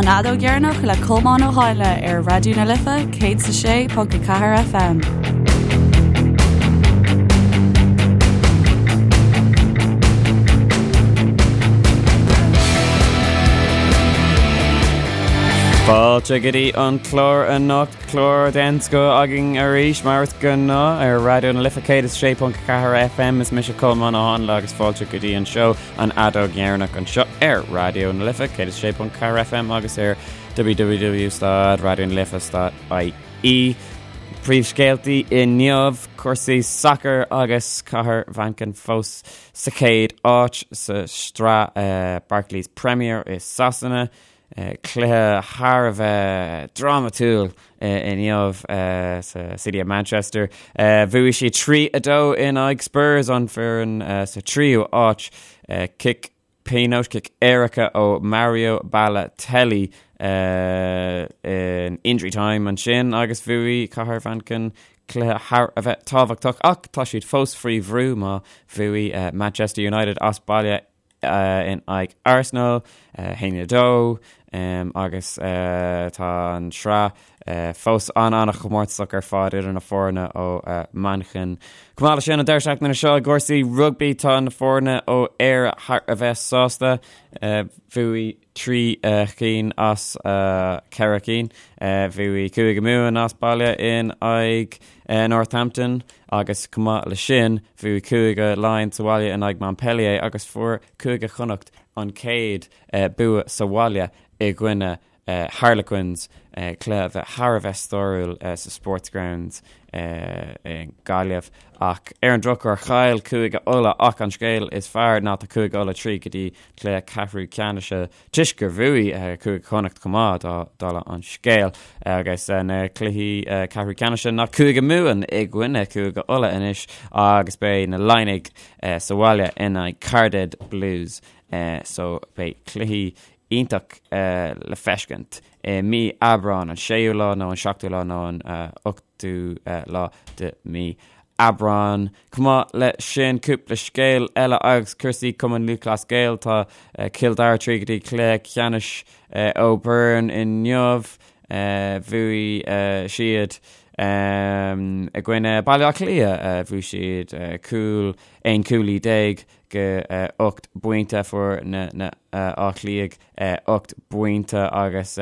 An Fheadóg Dheireanach le Colmán Ó Háinle ar Raidió na Life 106.4 FM. Fáilte go dtí an clár anocht, clár den scoth againn arís mar is gnáth ar Raidió na Life 106.4 FM. Is mise Colmán Ó Háinle agus fáilte go dtí an seó An Fheadóg Dheireanach anseo ar Raidió na Life 106.4 FM agus ar www.raidionalife.ie. Príomhscéaltaí inniu, cúrsaí sacair agus Cathair Mhanchain fós sa chéad áit sa sraith Barclays Premier i Sasana. Cluiche thar a bheith drámatúil inniu sa City of Manchester. Bhuaigh siad 3-2 in aghaidh Spurs, an foireann sa tríú áit. Cic pionóis, cic éirice ó Mario Balotelli in injury time ansin agus bhuaigh Cathair Mhanchain cluiche thar a bheith tábhachtach ach tá siad fós faoi bhrú má bhuaigh Manchester United as baile in aghaidh Arsenal, 1-2, agus tá an tsraith fós an-an-chomórtasach ar fad idir na foirne ó Manchain. Chomh maith leis sin, an deireadh seachtaine seo i gcúrsaí rugbaí tá na foirne ó Éire thar a bheith sásta. Bhuaigh 3 chinn as 4 cinn. Bhuaigh Cúige Mumhan as baile in aghaidh Northampton agus chomh maith leis sin, bhuaigh Cúige Laighean sa bhaile in aghaidh Montpellier agus fuair Cúige Chonnacht an chéad bua sa bhaile i gcoinne Harlequins, cluiche a bheith thar a bheith stairiúil sa Sportsgrounds i nGaillimh. Ach ar an drochuair, chaill Cúige Uladh ach an scéal is fearr ná tá Cúige Uladh tríd go dtí cluiche ceathrú ceannais toisc gur bhuaigh Cúige Chonnacht chomh maith, dála an scéil. Agus na cluichí ceathrú ceannais ná Cúige Mumhan i gcoinne Cúige Uladh anois agus beidh na Laighnigh sa bhaile in aghaidh Cardiff Blues. So beidh cluichí iontach le feiscint i mí Aibreán, an séú lá nó an seachtú lá nó an ochtú lá de mí Aibreán. Chomh maith le sin, cúpla scéal eile agus cúrsaí Cumann Lúthchleas Gael. Tá Cill Dara tríd go dtí cluiche ceannais O'Byrne inniu. Bhuaigh siad i gcoinne Baile Átha Cliath. Bhuaigh siad cúl, 11 cúilín go 8 bpointe. Fuair na Áth Cliath 8 bpointe agus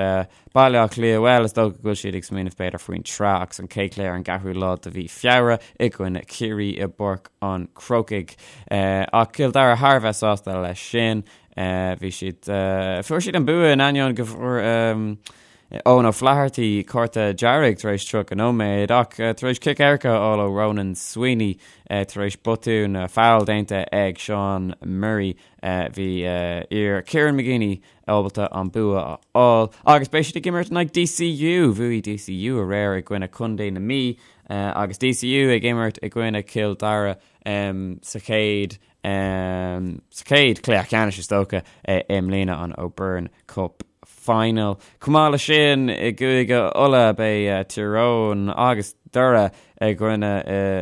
Baile Átha Cliath, bhuel, is dócha go bhfuil siad ag smaoineamh b'fhéidir faoin tsraith agus an chéad chluiche ar an gceathrú lá de mhí Feabhra i gcoinne Chiarraí i bPáirc an Chrócaigh. Ach Cill Dara thar a bheith sásta leis sin. Bhí siad, fuair siad an bua in ainneoin go bhfuair Eoin O'Flaherty cárta dearg tar éis 30 nóiméad ach tar éis cic éirice a fháil ó Ronan Sweeney tar éis botún foul déanta ag Sean Murray bhí fir Kieran McGeeney ábalta an bua a fháil agus beidh siad ag imirt in aghaidh DCU. Bhuaigh DCU aréir i gcoinne Contae na Mí agus DCU ag imirt i gcoinne Cill Dara sa chéad sa chéad chluiche ceannais is dócha i mbliana an O'Byrne Cup Final. Chomh maith leis sin i gCúige Uladh beidh Tír Eoghain agus Doire i gcoinne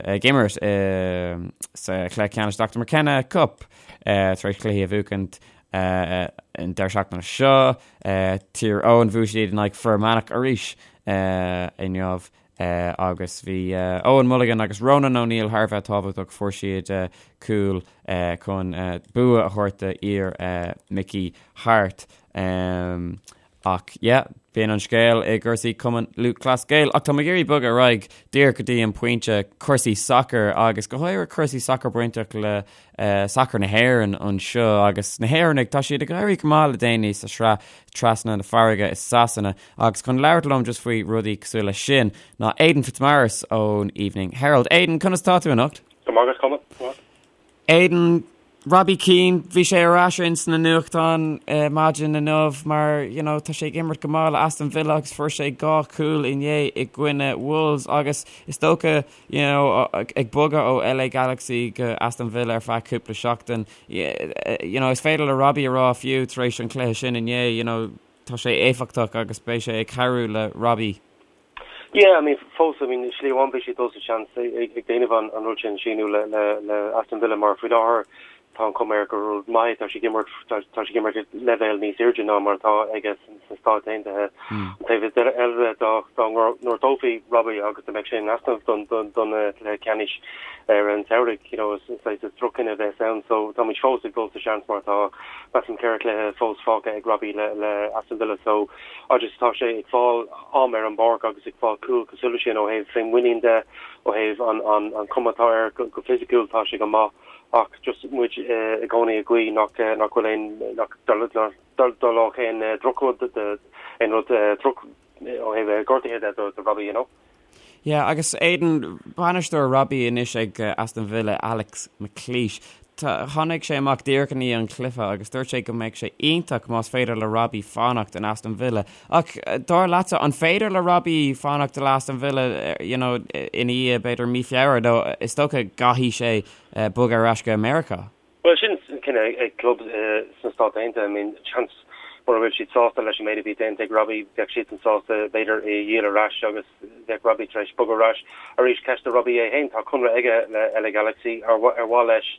ag imirt sa chluiche ceannais Dr McKenna Cup tar éis cluichí a bhuachaint An deireadh seachtaine seo, Tír Eoghain, bhuaigh siad in aghaidh Fir Manach arís inniu agus bhí Owen Mulligan agus Ronan O'Neill thar a bheith tábhachtach, fuair siad cúl chun bua a thabhairt do fhir Mickey Harte. Ach yeah, b'in an scéal i gcúrsaí Cumann Lúthchleas Gael. Ach tá mé ag iarraidh bogadh ar aghaidh díreach go dtí an pointe cúrsaí sacair agus go háirithe cúrsaí sacair bainteach le sacar na hÉireann anseo agus na hÉireannaigh, tá siad ag éirí go maith le déanaí sa sraith trasna na farraige i Sasana agus chun labhairt liom just faoi rudaí cosúil leis sin ná Aidan Fitzmaurice ón Evening Herald. Aidan, conas tá tú anocht? Go maith agat, Colm. Go maith. Aidan, Robbie Keane, bhí sé ar ais ins na nuachtáin maidin inniu mar you know tá sé ag imirt go maith le Aston Villa agus fuair sé 2 chúl inné i gcoinne Wolves agus is dócha you know ag bogadh ó LA Galaxy go Aston Villa ar feadh cúpla seachtain you know is féidir le Robbie a rá fiú tar éis an chluiche sin inné you know tá sé éifeachtach agus beidh sé ag cabhrú le Robbie. Yeah, I mean, fós, I mean, slí amháin beidh sé dul sa seans ag déanamh an rud sin, síniú le Aston Villa mar faoi láthair. Tá an chuma air gur rud maith é, tá sé ag imirt, tá sé ag imirt ag leibhéal níos airde ná mar atá aige sna Stáit Aontaithe. An taobh eile de, dá ngortófaí Robbie agus dá mbeadh sé in easnamh don chluiche ceannais ar an tsamhraidh, you know, is saghas droch-chinneadh a bheas ann. So táimid fós ag dul sa seans mar tá, measaim, 4 chluiche fós fágtha ag Robbie le Aston Villa. So agus tá sé ag fáil am ar an bpáirc agus ag fáil cúl cosúil leis sin ó thaobh féinmhuinín de, ó thaobh an chuma atá air go fisiciúil, tá sé go maith. Ach just muid i gcónaí ag guí nach nach bhfuil aon nach dtarlódh aon drochrud aon rud droch ó thaobh gortaithe de do Robbie, you know. Yeah, agus Aidan, bainisteoir Robbie anois ag Aston Villa, Alex McLeish, tháinig sé amach díreach i ndiaidh an chluiche agus dúirt sé go mbeadh sé iontach más féidir le Robbie fanacht in Aston Villa. Ach dar leatsa, an féidir le Robbie fanacht le Aston Villa you know, ina dhiaidh b'fhéidir mí Feabhra nó is dócha gcaithfidh sé bogadh ar ais go Meiriceá? Bhuel, sin cinneadh ag club sna Stáit Aontaithe. I mean, seans mura bhfuil siad sásta leis an méid a bhí déanta ag Robbie, bheadh siadsan sásta b'fhéidir é a dhíol ar ais agus bheadh Robbie tar éis bogadh ar ais. Arís, ceist do Robbie é féin, tá conradh aige le LA Galaxy, ar mhaith leis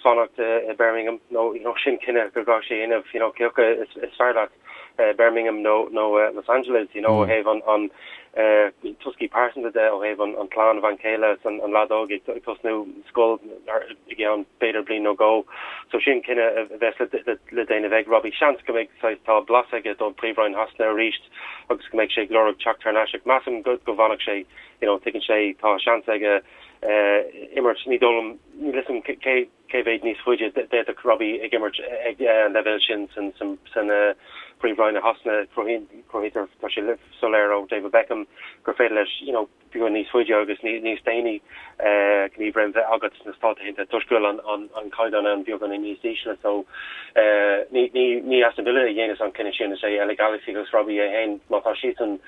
fanacht i Birmingham nó you know, sin cinneadh go gcaithfidh sé a dhéanamh, you know, cé acu is fearr leat. Birmingham nó Los Angeles, you know, ó thaobh an toscaí pearsanta de, ó thaobh an clann, bhean chéile is an leaid óg ag tosnú scoil i gceann b'fhéidir bliain nó dhó. So sin cinneadh a bheas le déanamh ag Robbie. Seans go mbeidh saghas, tá blas aige don Phríomhroinn Shasana arís agus go mbeidh sé ag lorg teacht thar n-ais ach measaim go bhfanfadh sé, you know, tuigeann sé, tá seans aige imirt, ní dóigh liom, níl 'fhios a'm cé Cé mhéad níos faide d'fhéadfadh Robbie ag imirt ag an leibhéal sin san Phríomhroinn i Shasana? Cruthaítear, tá sé soiléir ó David Beckham gur féidir leis you know beagán níos faide agus níos déanaí gníomhréim bheith agat sna Stáit Aontaithe toisc go bhfuil an caighdeán ann beagán níos ísle. So ní Aston Villa a dhéanas an cinneadh sin, is é LA Galaxy agus Robbie é féin. Má tá siadsan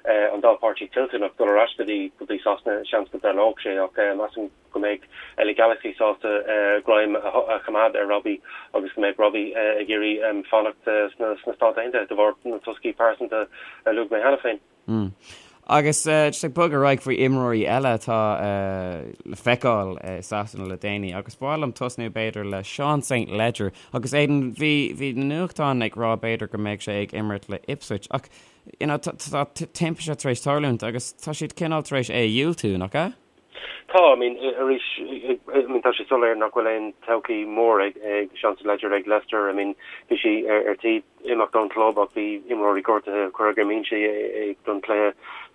an dá pháirtí toilteanach dul ar ais go dtí Sasana, seans go dtarlódh sé ach measaim go mbeidh LA Galaxy sásta greim a choimeád ar Robbie agus go mbeidh Robbie ag iarraidh fanacht sna Stáit Aontaithe de bharr na toscaí pearsanta a luaigh mé cheana féin. Agus just ag bogadh ar aghaidh faoi imreoirí eile atá le feiceáil i Sasana le déanaí agus ba mhaith liom tosnú b'fhéidir le Sean St Ledger agus Aidan bhí bhí na nuachtáin ag rá b'fhéidir go mbeidh sé ag imirt le Ipswich ach you know tá timpiste tar éis tarlúint agus tá siad cineál tar éis é a dhiúltú, nach ea? Tá, I mean, arís, I mean, tá sé soiléir nach bhfuil aon todhchaí mór ag Sean St Ledger ag Leicester. I mean, bhí sé ar tí imeacht ón chlub ach bhí imreoirí gortaithe, cuireadh ar an mbinse é don chluiche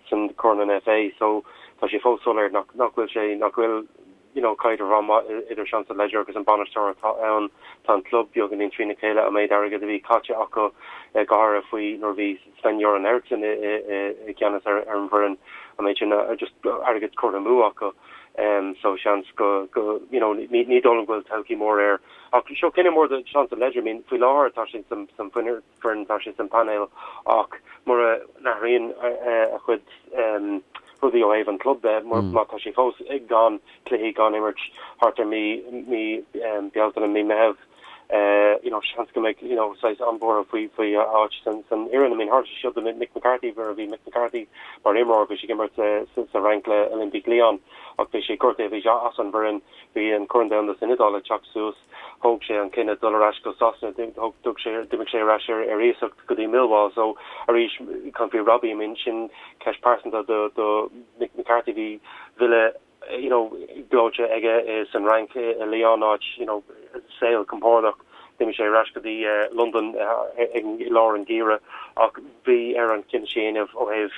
san Corn an FA. So, tá sé fós soiléir nach nach bhfuil sé, nach bhfuil, you know, caidreamh an-mhaith idir Sean St Ledger agus an bainisteoir atá ann. Tá an club beagáinín trína chéile, an méid airgid a bhí caite acu go háirithe faoi nuair a bhí Sven-Göran Eriksson i gceannas ar an bhfoireann, an méid sin just airgead curtha amú acu so seans go, you know, ní dóigh liom go bhfuil todhchaí mór air. Ach seo cinneadh mór do Sean St Ledger, I mean faoi láthair tá sé san foireann, tá sé san painéal ach mura n-athraíonn a chuid rudaí ó thaobh an club de, má tá sé fós gan cluichí, gan imirt thart ar mí Bealtaine, mí Meitheamh, you know, seans go mbeidh, you know, saghas an-bhuartha faoi, faoi a áit san, san fhoireann. I mean, tharla sé seo do Mick McCarthy, nuair a bhí Mick McCarthy mar imreoir, bhí sé ag imirt sa, sa Fhrainc le Olympique Lyon ach bhí sé gortaithe, bhí sé as an bhfoireann, bhí an Corn Domhanda san Iodáil ag teacht suas, thóg sé an cinneadh dul ar ais go Sasana, thóg, thug sé, d'imigh sé ar ais ar, ar iasacht go dtí Millwall. So, arís, caint faoi Robbie, I mean, sin ceist pearsanta do, do Mick McCarthy, bhí villa, you know, gleoite aige san Fhrainc i Lyon áit, you know, saol compordach. D'imigh sé ar ais go dtí Londain i lár an gheimhridh ach bhí air an cinneadh sin a dhéanamh ó thaobh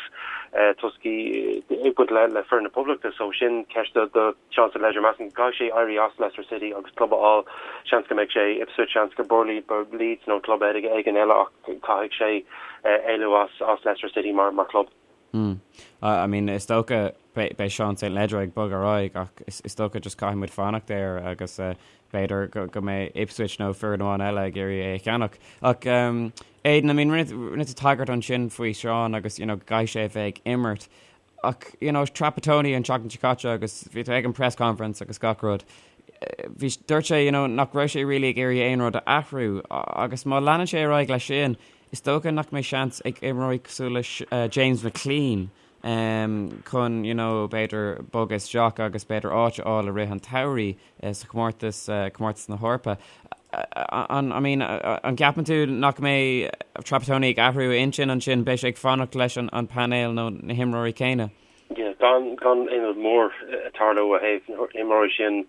toscaí ag baint le le foireann na Poblachta. So sin ceist do do Sean St Ledger. Measaim go gcaithfidh sé éirí as Leicester City agus club a fháil. Seans go mbeidh sé Ipswich, seans go Burnley, Leeds nó club éigin eile ach caithfidh sé éalú as as Leicester City mar mar chlub. Mm. I mean, is dócha beidh Sean St Ledger ag bogadh ar aghaidh ach is dócha just caithfidh muid fanacht air agus eh, b'fhéidir go mbeidh Ipswich nó foireann amháin eile ag iarraidh é a cheannach. Ach um, Aidan, I mean, rinne tú tagairt ansin faoi Sean agus you know, go gcaithfidh sé a bheith ag imirt. Ach you know, Trapattoni an tseachtain seo caite agus bhí tú ag an press conference agus gach rud. Eh, bhí dúirt sé you know, nach raibh sé really ag iarraidh aon rud a athrú agus má leanann sé ar aghaidh leis sin, Is dócha nach mbeidh seans ag imreoirí cosúil le James McClean. chun you know b'fhéidir bogadh isteach agus b'fhéidir áit a fháil i rith an tsamhraidh sa chomórtas, comórtas na hEorpa. An, I mean, an gceapann tú nach mbeidh Trapattoni ag athrú a intinn ansin, beidh sé ag fanacht leis an painéal nó na himreoirí céanna? Yeah, gan gan aon rud mór ag tarlú ó thaobh na himreoirí sin,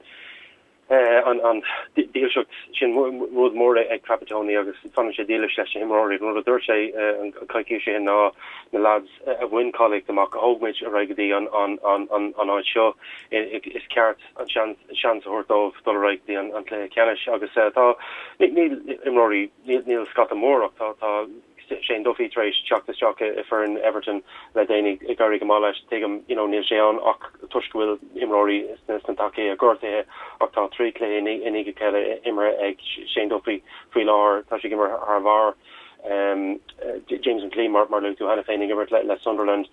an dílseacht sin rud mór ag Trapattoni agus fanann sé dílis leis na himreoirí. An rud a dúirt sé an coicís seo ná na lads a bhain cáilíocht amach, a thóg muid ar aghaidh go dtí an áit seo, is ceart an seans a thabhairt dóibh dul ar aghaidh go dtí an cluiche ceannais agus tá, níl imreoirí, níl scata mór ach tá Shane Duffy tar éis teacht isteach i foireann Everton le déanaí, ag éirí go maith leis. Tuigim, you know, níl sé ann ach toisc go bhfuil imreoirí sna tacaí gortaithe ach tá 3 chluiche i ndiaidh a chéile imeartha ag Shane Duffy faoi láthair. Tá sé ag imirt thar barr. James McClean, mar a luaigh tú cheana féin, ag imirt le Sunderland.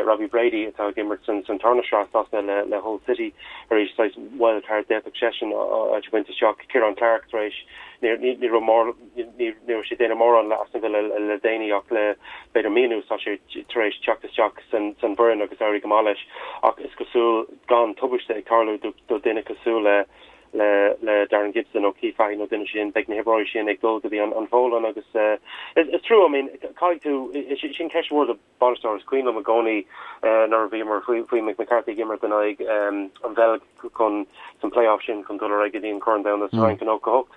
Robbie Brady atá ag imirt san tarna sraith Sasana le Hull City arís, saghas wild card, d'fhéadfadh seisean áit a bhaint isteach. Ciaran Clark tar éis, ní raibh mór, Ní raibh sé ag déanamh mórán le Aston Villa le déanaí ach le b'fhéidir mí anuas tá sé tar éis teacht isteach san bhfoireann agus éirí go maith leis ach is cosúil gan tubaiste ag tarlú do duine cosúil le le Darren Gibson nó Keith Fahey nó duine sin beidh na himreoirí sin ag dul go dtí an Pholainn agus is trua I mean caithfidh tú sin ceist mhór do bainisteoir. Is cuimhin liom i gcónaí nuair a bhíomar faoi Mick McCarthy ag imirt in aghaidh an Bheilg chun san play-off sin chun dul ar aghaidh go dtí an Corn Domhanda sa Fhrainc i 98.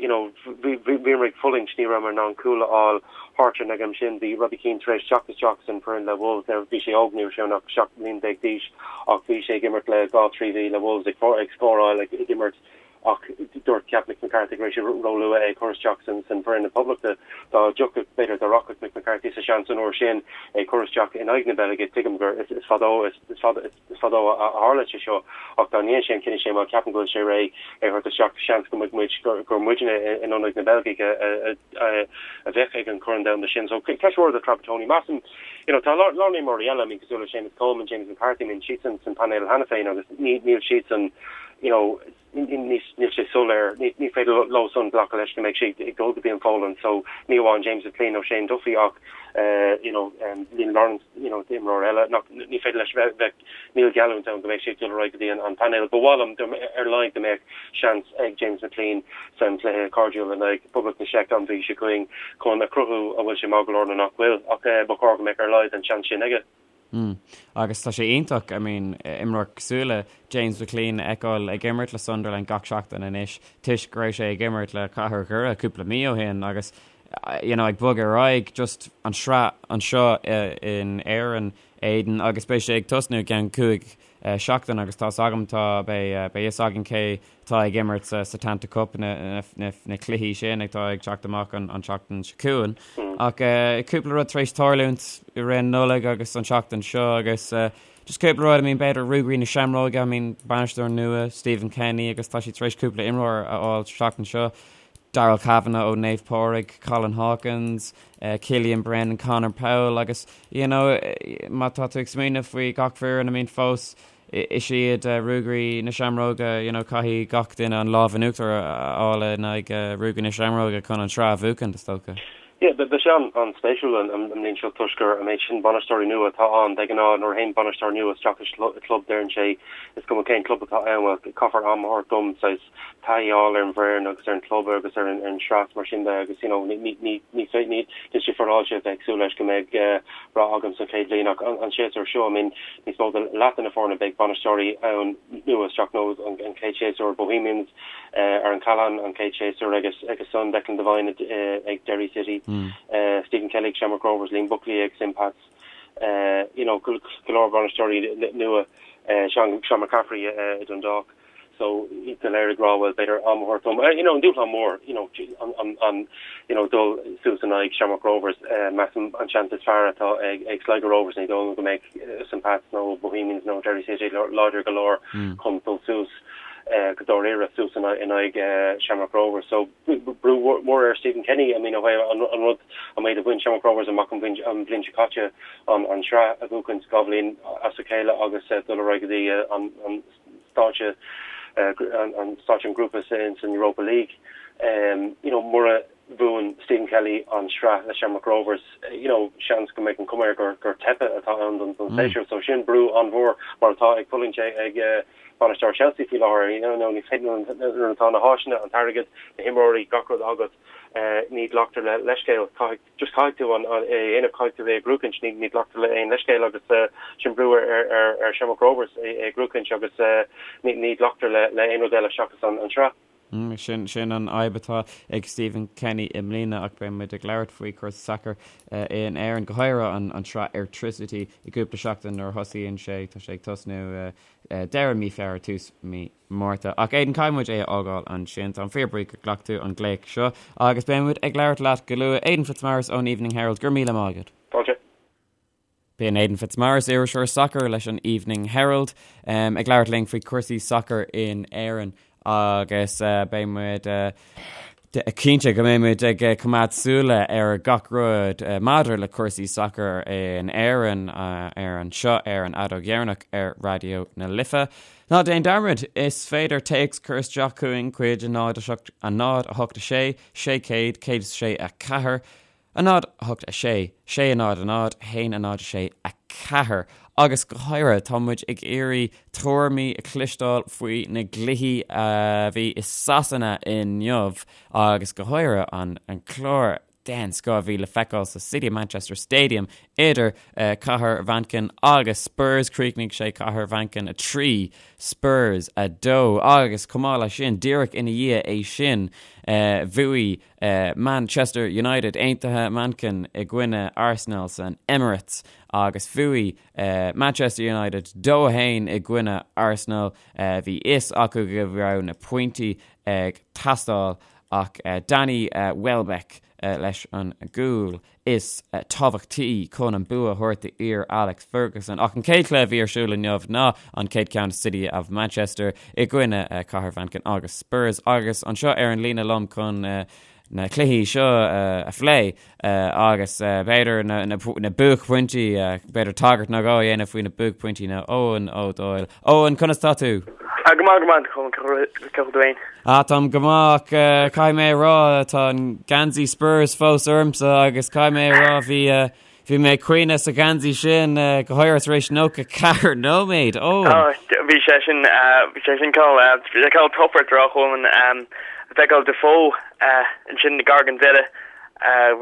You know, bhíomar ag fulaingt, ní rabhamar in ann cúl a fháil thart ar an am sin. Bhí Robbie Keane tar éis teacht isteach san foireann le Wolves. Now bhí sé óg, ní raibh sé ann ach 17 mbliana d'aois ach bhí sé ag imirt le dhá trí mhí le Wolves ag scóráil ag imirt Ach dúirt cheap Mick McCarthy go raibh sé róluath é a chur isteach san bhfoireann na Poblachta. Dá dtiocfadh, b'fhéidir, dá rachadh Mick McCarthy sa seans an uair sin é a chur isteach in aghaidh na Beilge, tuigim gur is fadó is fada is fadó a tharla sé seo, ach dá ndéanfadh sé an cinneadh sin, bhuel, ceapaim go bhfuil sé réidh é a thabhairt isteach, seans go mbeadh muid, gur muidne in ionad na Beilgigh a bheadh ag an Chorn Domhanda sin. So, ceist mhór do Trapattoni. Measaim, you know, tá a lán imreoirí eile, I mean, cosúil le Seamus Coleman, James McCarthy, I mean, siadsan san painéal cheana féin agus níl siadsan, you know, níl sé soiléir, ní féidir leo san glacadh leis go mbeidh siad ag dul go dtí an Pholainn so ní amháin James McClean nó Shane Duffy ach you know, Liam Lawrence, you know, imreoir eile nach ní féidir leis bheith bheith níl geallúint ann go mbeidh sé ag dul ar aghaidh go dtí an painéal. Ba mhaith liom ar a laghad go mbeadh seans ag James McClean san chluiche cairdiúil in aghaidh Phoblacht na Seice an mhí seo chugainn chun a chruthú an bhfuil sé maith go leor nó nach bhfuil ach ba chóir go mbeadh ar a laghad an seans sin aige. Mm. Agus tá sé iontach, I mean, imreoir cosúil le James McClean a fheiceáil ag imirt le Sunderland gach seachtain anois toisc go raibh sé ag imirt le Cathair Dhoire cúpla mí ó shin agus you know, ag bogadh ar aghaidh just an sraith anseo in Éirinn, Aidan, agus beidh sé ag tosnú i gceann 5 seachtain agus tá's agam tá beidh beidh fhios againn cé atá ag imirt sa Setanta Cup na na cluichí sin atá ag teacht amach an an tseachtain seo chugainn. Ach cúpla rud tar éis tarlúint i rith an Nollaig agus an tseachtain seo agus just cúpla rud, I mean b'fhéidir Ruagairí na Seamróige, I mean bainisteoir nua Stephen Kenny agus tá siad tar éis cúpla imreoir a fháil sa tseachtain seo. Darrell Kavanagh ó Naomh Pádraig, Colin Hawkins, Killian Brennan, Conor Powell agus you know má tá tú ag smaoineamh faoi gach foireann, I mean fós is iad Ruagairí na Seamróige, you know caithfidh gach duine an lámh in uachtar a fháil in aghaidh Ruagairí na Seamróige chun an tsraith a bhuachan, is dócha. Yeah, beidh sé an-spéisiúil an mbliain seo toisc gur an méid sin bainisteoirí nua atá ann. De ghnáth nuair a théann bainisteoir nua isteach i gclub deireann sé is cuma cén club atá ann, bhuel caithfear am a thabhairt dom saghas taithí a fháil ar an bhfoireann agus ar an gclub agus ar an sraith mar sin de agus you know ní ní ní ní níl sé féaráilte a bheith ag súil leis go mbeidh rath agam sa chéad bhliain ach an séasúr seo I mean níos mó de leath de na foirne beidh bainisteoirí ann nua isteach nó an chéad séasúr Bohemians Aaron Callaghan an chéad séasúr agus agus san Declan Devine ag Derry City Stephen Kelly ag Shamrock Rovers Liam Buckley ag St Pat's you know go leor bainisteoirí nua Sean Sean McCaffrey i Dundalk. So iad go léir ag rá bhuel b'fhéidir am a thabhairt dom. You know an dúshlán mór you know an an an you know dul suas in aghaidh Shamrock Rovers measaim an seans is fearr atá ag ag Sligo Rovers ní dóigh liom go mbeidh St Pat's nó Bohemians nó Derry City láidir go leor chun dul suas go dáiríre suas in aghaidh Shamrock Rovers. So brú mór ar Stephen Kenny I mean ó thaobh an rud an méid a bhain Shamrock Rovers amach an bhliain seo caite an an sraith a bhuachaint 2 bhliain as a chéile agus dul ar aghaidh go dtí an an stáitse an stáitse an grúpa san Europa League. You know, mura. bhuann Stephen Kelly an sraith le Shamrock Rovers, you know, seans go mbeidh an cuma air gur gur teipthe atá ann don don séasúr. So sin brú an-mhór mar atá ag fulaingt ag bainisteoir Chelsea faoi láthair. You know, ní féidir nuair atá na háiseanna, an t-airgead, na himreoirí, gach rud agat, ní ghlactar le leithscéal. Caithfidh just caithfidh tú an é a dhéanamh, caithfidh tú é a ghnóthachaint, ní ní ghlactar le aon leithscéal agus sin brú ar ar ar ar Shamrock Rovers é a ghnóthachaint agus ní ní ghlactar le le aon rud eile seachas an an sraith. Sin sin an fhadhb atá ag Stephen Kenny i mbliana ach beidh muid ag labhairt faoi chúrsaí sacair in Éirinn, go háirithe an an tsraith Airtricity i gcúpla seachtain nuair a thosaíonn sé. Tá sé ag tosnú deireadh mí Feabhra, tús mí Márta. Ach Aidan, caithfidh muid é a fhágáil ansin. Táim fíorbhuíoch gur ghlac tú an glaoch seo agus beidh muid ag labhairt leat go luath. Aidan Fitzmaurice ón Evening Herald, go raibh míle maith agat. Fáilte. B'in Aidan Fitzmaurice, iriseoir sacair leis an Evening Herald, ag labhairt linn faoi chúrsaí sacair in Éirinn agus beidh muid cinnte go mbeidh muid ag coimeád súile ar gach rud maidir le cúrsaí sacair in Éirinn ar anseo ar an Fheadóg Dheireanach ar Raidió na Life. Ná déan dearmad, is féidir téacs cur isteach chugainn chuig 0 7 0 8 6 600 106 4. 0, 8, 6, 6, 0, 0, 1, 0, 6, 4. Agus go háirithe, tá muid ag iarraidh tuairimí a chloisteáil faoi na gcluichí a bhí i Sasana inniu agus go háirithe an clár den scoth a bhí le feiceáil sa City of Manchester Stadium idir Cathair Mhanchain agus Spurs. Chríochnaigh sé Cathair Mhanchain 3, Spurs 2 agus chomh maith leis sin, díreach ina dhiaidh é sin, bhuaigh Manchester United Aontaithe Manchain i gcoinne Arsenal san Emirates agus bhuaigh Manchester United 2-1 i gcoinne Arsenal. Bhí fhios acu go raibh na pointí ag teastáil ach Danny Welbeck leis an gcúl is tábhachtaí chun an bua a thabhairt d'fhir Alex Ferguson. Ach an chéad chluiche a bhí ar siúl inniu ná an chéad ceann City of Manchester i gcoinne Cathair Mhanchain agus Spurs. Agus anseo ar an líne liom chun na cluichí seo a phlé agus b'fhéidir na buaicphointí, b'fhéidir tagairt nó dhó a dhéanamh faoi na buaicphointí ná Eoin Ó Dóill. Eoin, conas tá tú? Go maith, go maith, cén chaoi a bhfuil tú féin? Ah, táim go maith ach caithfidh mé a rá, tá an geansaí Spurs fós ormsa agus caithfidh mé a rá, bhí, bhí mé ag caoineadh sa gheansaí sin, go háirithe tar éis 94 nóiméad. Ó! Ah, bhí sé sin, bhí sé sin cineál, bhí sé cineál tobar droch-omen, feiceáil Defoe ansin gar don deireadh,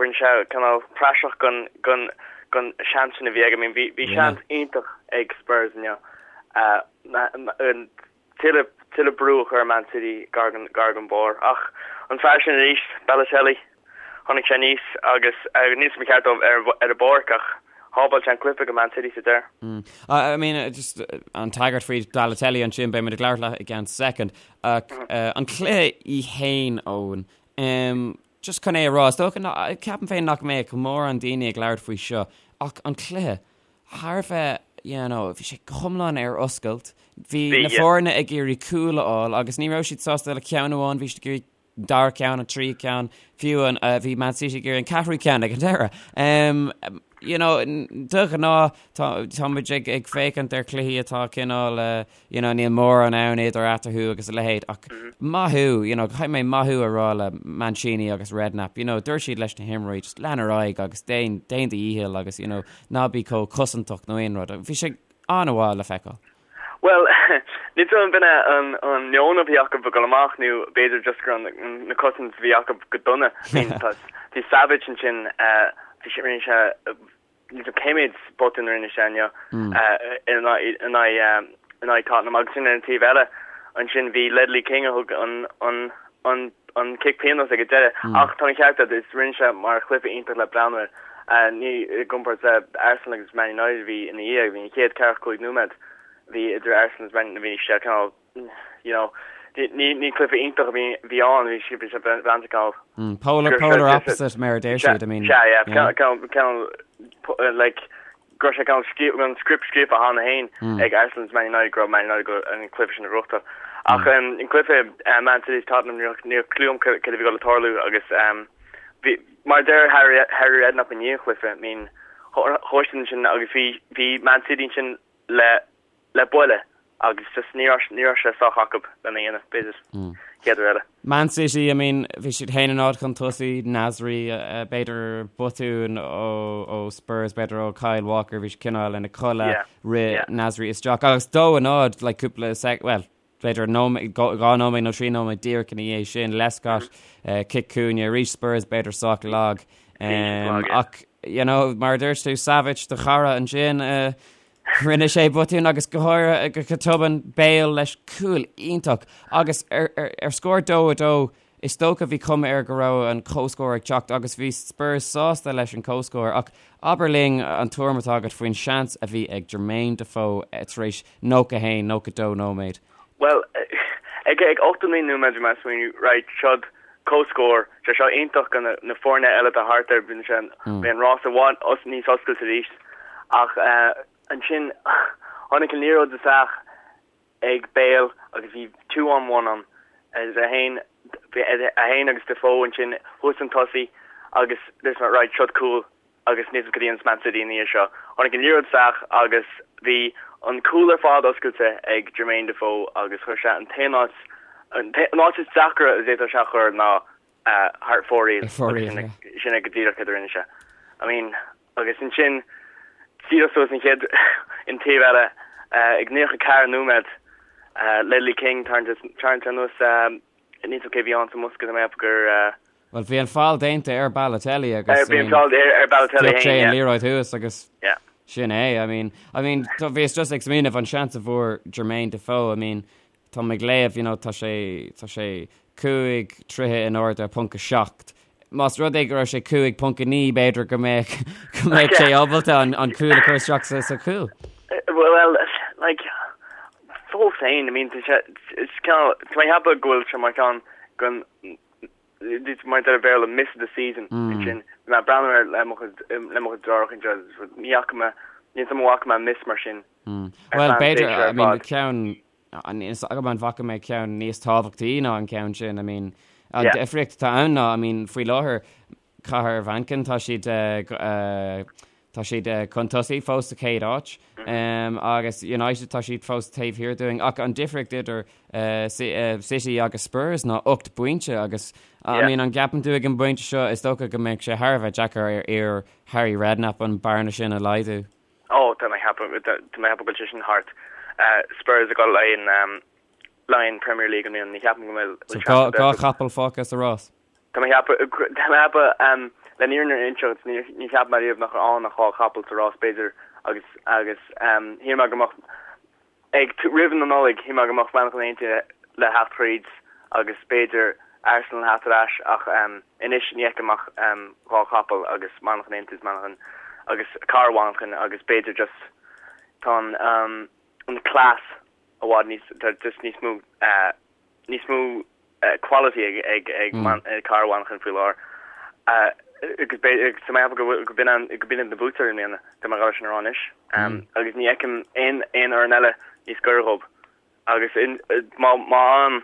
rinne sé cineál praiseach den, den, den seans sin a bhí aige. I mean, bhí, bhí seans iontach ag Spurs inniu. Tuilleadh, tuilleadh brú a chur ar Man City gar don, gar don barr. Ach an fear sin arís, Balotelli, tháinig sé aníos agus, níl 'fhios a'm an ceart dó ar, ar an bpáirc ach shábháil sé an cluiche do Man City sa deireadh. I mean, just an tagairt faoi Balotelli ansin, beidh muid ag labhairt leat i gceann soicind. Ach an cluiche í fhéin, Eoin, just chun é a rá, is dócha, ceapaim féin nach mbeadh mórán daoine ag labhairt faoi seo, ach an cluiche, thar a bheith, you know, bhí sé go hiomlán ar oscailt. Bhí na foirne ag iarraidh cúl a fháil agus ní raibh siad sásta le ceann amháin, bhí siad ag iarraidh an dara ceann, an tríú ceann, fiú an, bhí Man City ag iarraidh an ceathrú ceann ag an deireadh. Um, you know, de ghnáth tá, tá muid ag, ag féachaint ar chluichí atá cineál, uh, you know, níl mórán ann idir eatarthu agus a leithéid ach maith thú, you know, caithfidh mé maith thú a rá le Mancini agus Redknapp, you know, dúirt siad leis na himreoirí just lean ar aghaidh agus déan, déan do dhícheall agus, you know, ná bí chomh cosantach nó aon rud. Bhí sé an-mhaith le feiceáil. Bhuel, níl 'fhios a'm an b'in é an, an meon a bhí acu ag dul amach nó b'fhéidir just go raibh na cosaint a bhí acu go dona. I mean, tá, bhí Savic ansin, eh, bhí sé, rinne sé, Níl 'fhios a'm cé méid botún a rinne sé inniu in aghaidh Tottenham agus sin ar an taobh eile ansin bhí Ledley King a thug an an an an cic pionóis ag an deireadh ach tá an ceart agat is rinne sé mar chluiche iontach le breathnú air ní i gcomparáid le Arsenal agus Man United a bhí ina dhiaidh bhí an chéad ceathracha 5 nóiméad bhí idir Arsenal agus Man bhí sé cineál you know, ní ní cluiche iontach a bhí bhí ann, bhí sé bhí sé breanda cineál. Polar polar opposite mar a deir siad, I mean. Sea, yeah, cineál cineál like go raibh sé cineál scríofa an script scríofa cheana féin ag Arsenal agus Man United go raibh Man United go an cluiche sin a ghnóthachtáil. Ach an cluiche Man City Tottenham ní raibh ní raibh clue agam cad a bhí ag dul a tarlú agus bhí mar a deir Harry Harry Redknapp i ndiaidh an chluiche, I mean chuaigh siad ansin agus bhí bhí Man City ansin le le buille. Agus just ní raibh ní raibh sé sách acu lena dhéanamh, b'fhéidir, chéad uair eile. Man City, I mean, bhí siad 1-0 chun tosaigh, Nasri, b'fhéidir botún ó ó Spurs, b'fhéidir ó Kyle Walker, bhí sé cineál ina chodladh, rith Nasri isteach agus 2-0, like cúpla sec, well, b'fhéidir nóiméad, 2 nóiméad nó 3 nóiméad díreach ina dhiaidh sin, Lescott, cic cúinne, arís Spurs b'fhéidir sách lag. Ach, you know, mar a dúirt tú, Savic, do chara ansin, Rinne sé botún agus go háirithe go tobann Bale leis cúl iontach agus ar scór 2-2 is dócha bhí cuma air go raibh an comhscór ag teacht agus bhí Spurs sásta leis an comhscór ach abair linn an tuairim atá agat faoin seans a bhí ag Jermaine Defoe tar éis 91, 92 nóiméad. Bhuel, ag 89 nóiméad bhí mé ag smaoineamh, right, seod comhscór, sé seo iontach do na foirne eile atá thart air, bíonn sé, beidh an rás i bhfad níos oscailte arís. Ach ansin tháinig an liathróid isteach ag Bale agus bhí two on one ann, é féin, é féin agus Defoe ansin thuas chun tosaigh agus dúirt mé right, seod cúl agus níl a fhios cad a dhéanfas Man City ina dhiaidh seo. Tháinig an liathróid isteach agus bhí an cúl ar fad oscailte ag Jermaine Defoe agus chuir sé an t-aon áit, an áit is deacra a d'fhéadfadh sé a chur ná thar fóraoil agus sin é go díreach céard a rinne sé. I mean, agus ansin díreach suas an chéad an taobh eile ag 94 nóiméad Ledley King tarraingt anuas níl a fhios agam cé bhí ann sa mbosca tá mé ag ceapadh gur Bhuel bhí an feall déanta ar Balotelli agus bhí an feall ar Balotelli sé an liathróid thuas agus sin é I mean I mean bhíos just ag smaoineamh an seans a bhfuair Jermaine Defoe I mean Tá mé ag léamh, you know, tá sé, tá sé 5 troithe in airde, ponc 7. Más rud é go raibh sé 5.9 b'fhéidir go mbeadh, go mbeadh sé ábalta an, an cúl a chur isteach sa, sa chúl. Well, like, fós féin, I mean, tá sé, is cineál, tá mé ag ceapadh go bhfuil sé mar cheann den, mar a deir an Béarla, miss of the season, ansin. Bhí mé ag breathnú air le mo chuid, le mo chuid deartháireacha anseo, ní fhaca mé, níl a fhios agam an bhfaca mé miss mar sin. Ar Bhuel, feadh b'fhéidir, tréimhse ar I mean, fad. ceann, níl a fhios agam an bhfaca mé ceann níos tábhachtaí ná an ceann sin, I mean, an Yeah. difríocht atá ann ná, I mean, faoi láthair, Cathair Mhanchain, tá siad, eh, eh, tá siad eh, chun tosaigh fós sa chéad áit, um, agus United tá siad fós taobh thiar dúinn, ach an difríocht idir eh, Ci- eh, City agus Spurs ná 8 bpointe agus, I Yeah. mean, an gceapann tú ag an bpointe seo, is dócha go mbeidh sé thar a bheith deacair ar fhir Harry Redknapp an bearna sin a laghdú. Ó, tá mé ag ceapadh, tá mé ag ceapadh go bhfuil sé sin thart. Spurs ag dul le haghaidh le haghaidh an Premier League i mbliana, ní cheapaim go bhfuil So seans ar bith. Chapall fágtha sa rás. Tá mé ag ceapadh, tá mé ag ceapadh, le an fhírinne a inseacht, ní, ní cheap mé riamh nach raibh ann ach dhá chapall sa rás b'fhéidir agus, agus shíl mé go mbeadh, Ag roimh na Nollag, shíl mé go mbeadh Manchain Aontaithe le theacht thríd agus b'fhéidir Arsenal theacht ar ais ach anois ní fheicim ach dhá chapall agus Manchain Aontaithe is Manchain agus Cathair Mhanchain agus b'fhéidir just tá an an class i bhfad níos tá just níos mó níos mó quality ag ag ag Cathair Mhanchain faoi láthair. Agus b'fhéidir tá mé ag ceapadh go bhfuil go b'in an go b'in iad na buaiteoirí i mbliana, tá mé ag dul sin a rá anois. Agus ní fheicim aon aon fhoireann eile níos gaire dhóibh. Agus in má má fhaigheann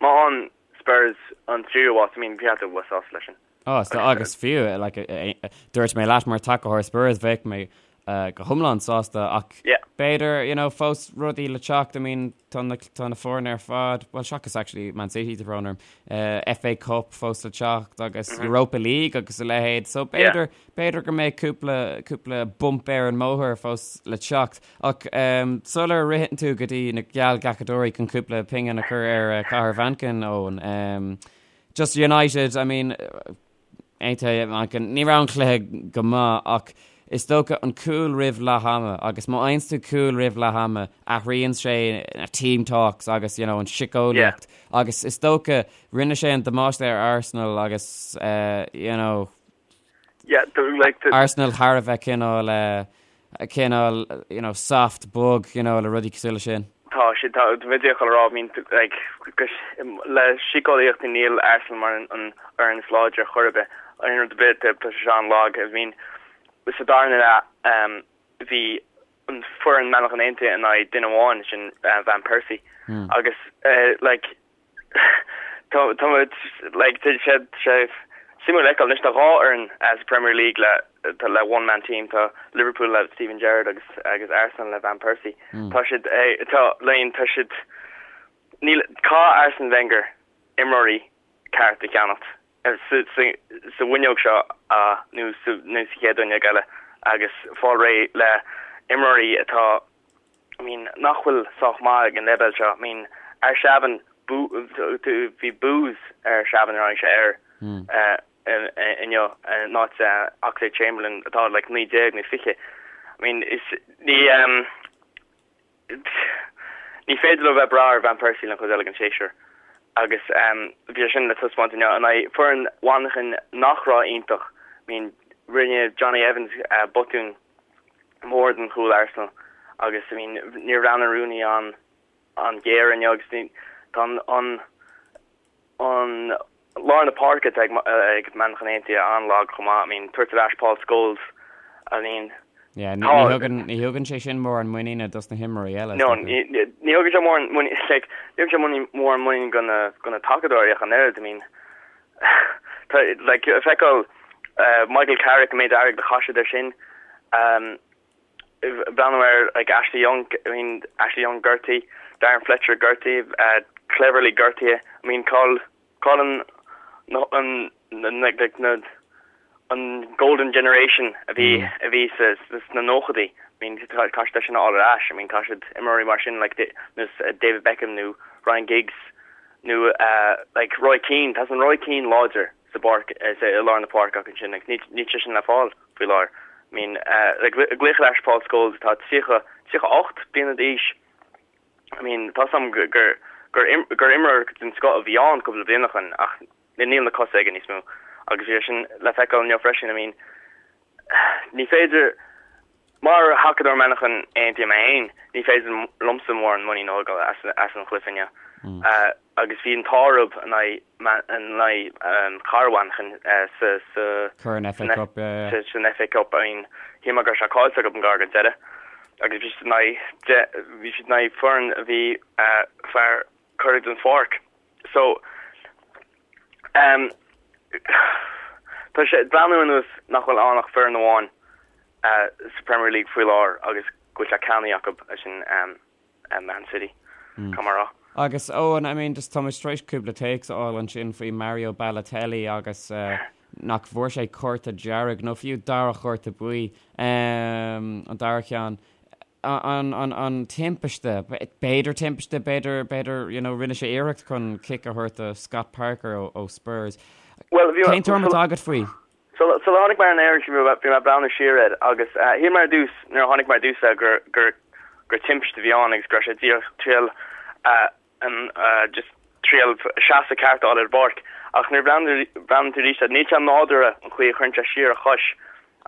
má fhaigheann Spurs an tríú háit, I mean bheadh tú sásta leis sin. Á, so agus fiú, like, dúirt mé leat mar tacaitheoir Spurs, bheadh mé go hiomlán sásta ach b'fhéidir, you know, fós rudaí le teacht, I mean, tá na, tá na foirne ar fad, well, seachas actually Man City, tá brón orm, FA Cup fós le teacht agus Europa League agus a leithéid, so b'fhéidir, b'fhéidir go mbeidh cúpla, cúpla bump ar an mbóthar fós le teacht. Ach sular ritheann tú go dtí na geallghlacadóirí chun cúpla pingin a chur ar Cathair Mhanchain, Eoin, Just United, I mean, aontaithe Manchain, ní raibh an cluiche go maith ach is dócha an cúl roimh leath ama agus má fhaigheanns tú cúl roimh leath ama athraíonn sé na team talks agus you know, an síceolaíocht yeah. agus is dócha rinne sé an damáiste ar Arsenal agus uh, you know, Yeah, like the... Arsenal thar a bheith cineál uh, cineál you know, soft bog you know, le rudaí cosúil leis sin. Tá sé tá bhí a rá I mean like le síceolaíocht níl Arsenal mar an an fhoireann is láidre chor ar bith aon rud ar bith tá sé an-lag I mean sa darna leath um, bhí an foireann Manchain Aontaithe in aghaidh duine amháin sin uh, Van Persie mm. agus uh, like tá tá like tá sé sé Suimiúil a fheiceáil. Anois tá 2 fhoireann sa Premier League le le one man team, tá Liverpool le Steven Gerrard agus agus Arsenal le Van Persie. Tá siad tá like tá siad níl caithfidh Arsene Wenger imreoirí ceart a cheannacht sa sa sa bhfuinneog seo nó sa nó sa chéad fhuinneog eile agus fáil réidh le imreoirí atá I mean nach bhfuil sách maith ag an leibhéal seo. I mean Arshavin bhí boos ar Arshavin nuair a tháinig sé air inniu in áit Oxlade Chamberlain atá like 19 nó 20. I mean is ní ní féidir leo bheith ag brath ar Van Persie den chuid eile den séasúr agus bhí sé sin le taispeáint inniu in aghaidh foireann Mhanchain nach raibh iontach. I mean rinne Jonny Evans botún mór den chúl Arsenal agus I mean níor bhreathnaigh Rooney an an géar inniu agus ní tá an an an lár na páirce atá ag ag Manchain Aontaithe an-lag chomh maith I mean tabhairt ar ais Paul Scholes I mean Yeah, ní ní thugann ní thugann sé sin mórán muiníne dos na himreoirí eile. No ní ní thugann sé mórán muinín like ní thugann sé muinín mórán muinín go na go na tacadóirí ach an oiread I mean Tá like feiceáil Michael Carrick an méid airgid a chaith siad air sin. Breathnú ar like Ashley Young, I mean Ashley Young gortaithe, Darren Fletcher gortaithe, Cleverley gortaithe. I mean cá bhfuil cá bhfuil an an an like like na an golden generation a bhí a bhí sa sna nóchaidí. I mean caithfidh siad é sin a fháil ar ais. I mean caithfidh siad imreoirí mar sin like David Beckham nó Ryan Giggs nó like Roy Keane, tá san Roy Keane láidir sa bpáirc, sa, i lár na páirce acu ansin agus níl, níl sé sin le fáil faoi láthair. I mean, like glaoch ar ais Paul Scholes atá 30, 38 bliana d'aois, I mean, tá 's agam gur, gur, gur, gur imreoir den scoth a bhí ann cúpla bliain ó shin ach níl na cosa aige níos mó agus bhí sé sin le feiceáil inniu freisin, I mean, ní féidir, Mar thacadóir Manchain Aontaithe mé féin, ní féidir liomsa mórán muinín a thógáil as an chluiche inniu. Agus bhí an t-ádh orthu in aghaidh cara Mhanchain sa Corn FA Cup, yeah, yeah. san FA Cup. I mean, shíl mé go raibh sé caillte acu gar don deireadh. Agus bhí siad in aghaidh, bhí siad in aghaidh foireann a bhí fear curtha den pháirc. So, um, tá sé ag breathnú ar nós nach bhfuil ann ach foireann amháin uh, sa Premier League faoi láthair agus go bhfuil sé ceannaithe acu é sin um, um, Man City. Mm. Caithfidh mé a rá. Agus Eoin, I mean, just tá muid tar éis cúpla téacs a fháil ansin faoi Mario Balotelli agus uh, nach bhfuair sé cárta dearg nó fiú dara chárta buí um, an dara ceann. an, an, an timpiste, b'fhéidir timpiste, b'fhéidir, b'fhéidir, you know, rinne sé iarracht chun cic a thabhairt do Scott Parker ó, ó Spurs. Well, bhí Cén tuairim atá agat faoi? Sula tháinig mé ar an aer bhí mé bhí mé ag breathnú siar air agus eh, shíl mé ar dtús nuair a tháinig mé ar dtús air gur gur gur timpiste a bhí ann agus go raibh sé díreach triail eh, an eh, just triail seasamh ceart a fháil ar an bpáirc ach nuair a bhreathnaíonn tú arís air níl sé nádúrtha an chaoi a chuireann sé siar a chois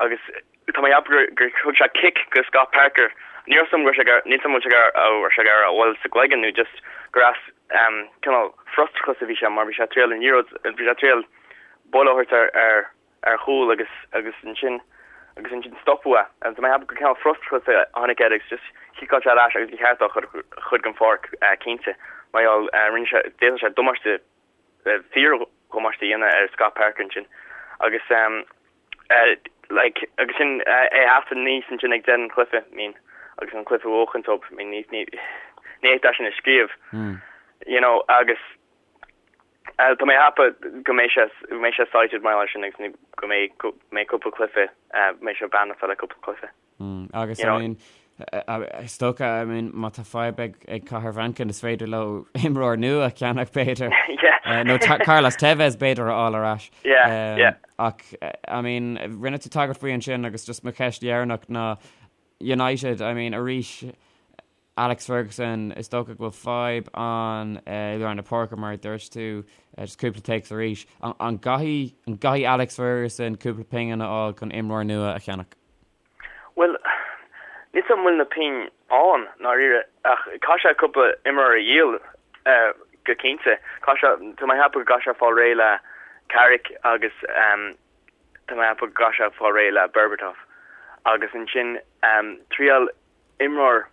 agus Tá mé ag ceapadh gur thug sé cic go Scott Parker. Níl a fhios agam go raibh sé ag, níl a fhios agam an bhfuil sé ag, raibh sé ag iarraidh a bhualadh sa gcloigeann nó just gur as cineál frustrachas a bhí sé mar bhí sé ag triail an liathróid, bhí sé ag triail buille a thabhairt ar, ar, ar chúl agus, agus ansin, agus ansin stopadh é. Tá mé ag ceapadh gur cineál frustrachas a tháinig air agus just chiceáil sé ar ais agus ba cheart dó a chur den pháirc cinnte mar gheall rinne sé, d'fhéadfadh sé damáiste fíor-dhamáiste a dhéanamh ar Scott Parker ansin agus like agus sin é a theacht aníos ansin ag deireadh an chluiche I mean agus an cluiche a bhuachaint dóibh I mean ní ní ní fhéadfá sin a scríobh you know agus tá mé ag ceapadh go mbeidh sé go mbeidh sé cited mar sin agus go mbeidh go mbeidh cúpla cluiche mbeidh sé banned le cúpla cluiche. Agus I mean, is dócha, I mean, má tá fadhb ag, ag Cathair Mhanchain, is féidir leo imreoir nua a cheannach b'fhéidir. Yeah. Nó Carlos Tevez b'fhéidir a fháil ar ais. Yeah, yeah. Ach, I mean, rinne tú tagairt faoi ansin agus just mo cheist dheireanach ná United, I mean, arís, Alex Ferguson, is dócha go bhfuil fadhb ann i lár na páirce mar a dúirt tú, just cúpla téacs arís. An gcaithfidh, an gcaithfidh Alex Ferguson cúpla pingin a fháil chun imreoir nua a cheannach? Bhuel, níl 's agam an bhfuil na pingin ann, ndáiríre, ach caithfidh sé cúpla imreoir a dhíol go cinnte. Caithfidh sé, tá mé ag ceapadh go gcaithfidh sé fáil réidh le Carrick agus tá mé ag ceapadh go gcaithfidh sé fáil réidh le Berbatov agus ansin triail imreoir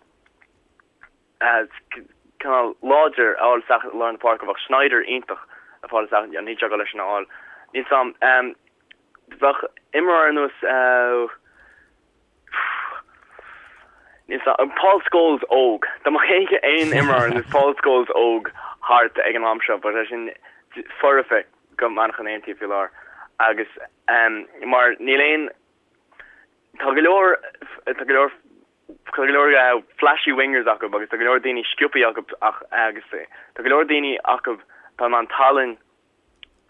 cineál láidir a fháil isteach i lár na páirce. Bheadh Sneijder iontach a fáil isteach, níl sé ag dul leis sin a fháil. Níl 's a'm. Bheadh imreoir ar nós níl 's a'm Paul Scholes óg. Dá mbeadh aon imreoir ar nós Paul Scholes óg thart ag an am seo, bheadh sé sin foirfe go Manchain Aontaithe faoi láthair. Agus mar níl aon tá go leor tá go leor tá go leor flashy wingers acu agus tá go leor daoine sciobtha acu ach agus tá go leor daoine acu atá in ann tallann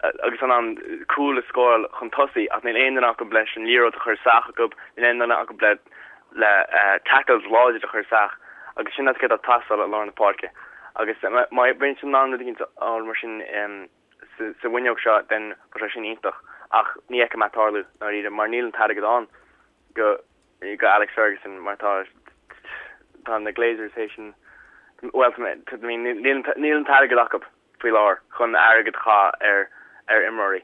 agus in ann cúil a scóráil chun tosaigh ach níl aon duine acu leis an liathróid a chur isteach acu, níl aon duine acu le le tackles láidir a chur isteach agus sin céard atá ag teastáil i lár na páirce. Agus má bhíonn siad in ann rud éicint a fháil mar sin sa bhfuinneog seo then bheadh sé sin iontach ach ní fheicim é ag tarlú ndáiríre mar níl an t-airgead ann go go Alex Ferguson mar tá tá na Glazers théis an bhuel níl níl an t-airgead acu. faoi láthair chun airgead a chaitheamh ar ar imreoirí.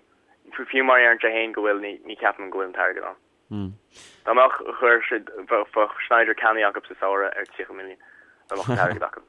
Fiú má deireann sé féin go bhfuil, ní ní ceapaim go bhfuil an t-airgead ann. Dá mbeadh, chuir siad, bheadh Sneijder ceannaithe acu sa samhradh ar 30 milliún, dá mbeadh an t-airgead acu.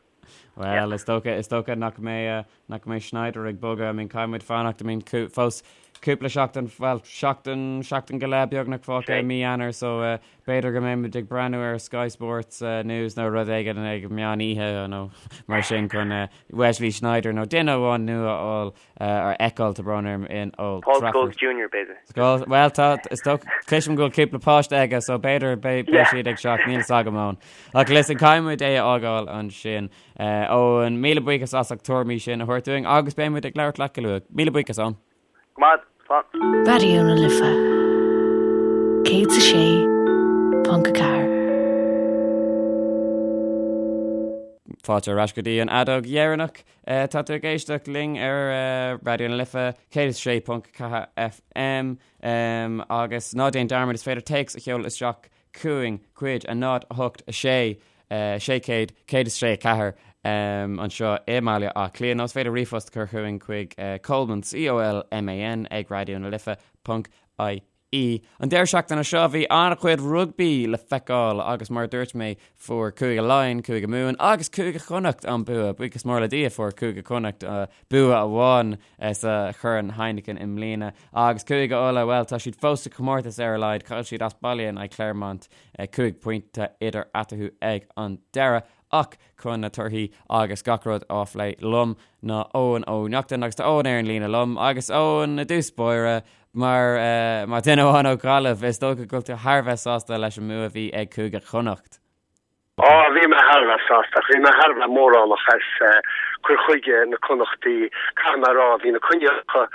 Well, is dócha, is dócha nach mbeidh, nach mbeidh Sneijder ag bogadh. I mean, caithfidh muid fanacht, I mean, fós cúpla seachtain, bhuel, seachtain, seachtain go leith beagnach fágtha i mí Eanáir, so B'fhéidir go mbeidh muid ag breathnú ar Sky Sports News nó rud éigin ag meán oíche nó mar sin chun Wesley Sneijder nó duine amháin nua a fháil a fheiceáil tá brón orm in Old Paul Trafford. Scholes Junior b'fhéidir. Scholes, bhuel tá, is dócha, cloisim go bhfuil cúpla páiste aige so b'fhéidir beidh yeah. siad ag teacht, níl 'fhios agam Eoin. Ach listen, caithfidh muid é a fhágáil ansin. Eoin, míle buíochas as ucht na tuairimí sin a thabhairt dúinn agus beidh muid ag labhairt leat go luath. Míle buíochas, Eoin. Go maith, slán. Raidió na Life 106.4. Fáilte ar ais go dtí an fheadóg dheireanach. Tá tú ag éisteacht linn ar Raidió na Life 106.4 FM agus ná déan dearmad is féidir téacs a sheoladh isteach chugainn chuig 0 8 6 600 106 4 anseo i mBaile Átha Cliath nó is féidir ríomhphost a chur chugainn chuig Colman, C-O-L-M-A-N, ag Raidió na Life ponc I-E. An deireadh seachtaine seo bhí an-chuid rugbaí le feiceáil agus mar a dúirt mé fuair Cúige Laighean, Cúige Mumhan agus Cúige Chonnacht an bua. Buíochas mór le Dia fuair Cúige Chonnacht bua amháin sa Chorn Heineken i mbliana. Agus Cúige Uladh, bhuel, tá siad fós sa chomórtas ar a laghad, chaill siad as baile in aghaidh Clermont, 5 pointe idir eatarthu ag an deireadh. Ach chun na torthaí agus gach rud á phlé liom ná Eoin Ó Neachtain agus tá Eoin ar an líne liom agus Eoin i dtús báire mar mar duine amháin ó Ghaillimh, is dócha go bhfuil tú thar a bheith sásta leis an mbua a bhí ag Cúige Chonnacht. Á, bhí mé thar a bheith sásta, ach bhí mé thar a bheith mórálach as cur chuige na Connachtaí. Caithfidh mé a rá, bhí na coinníollacha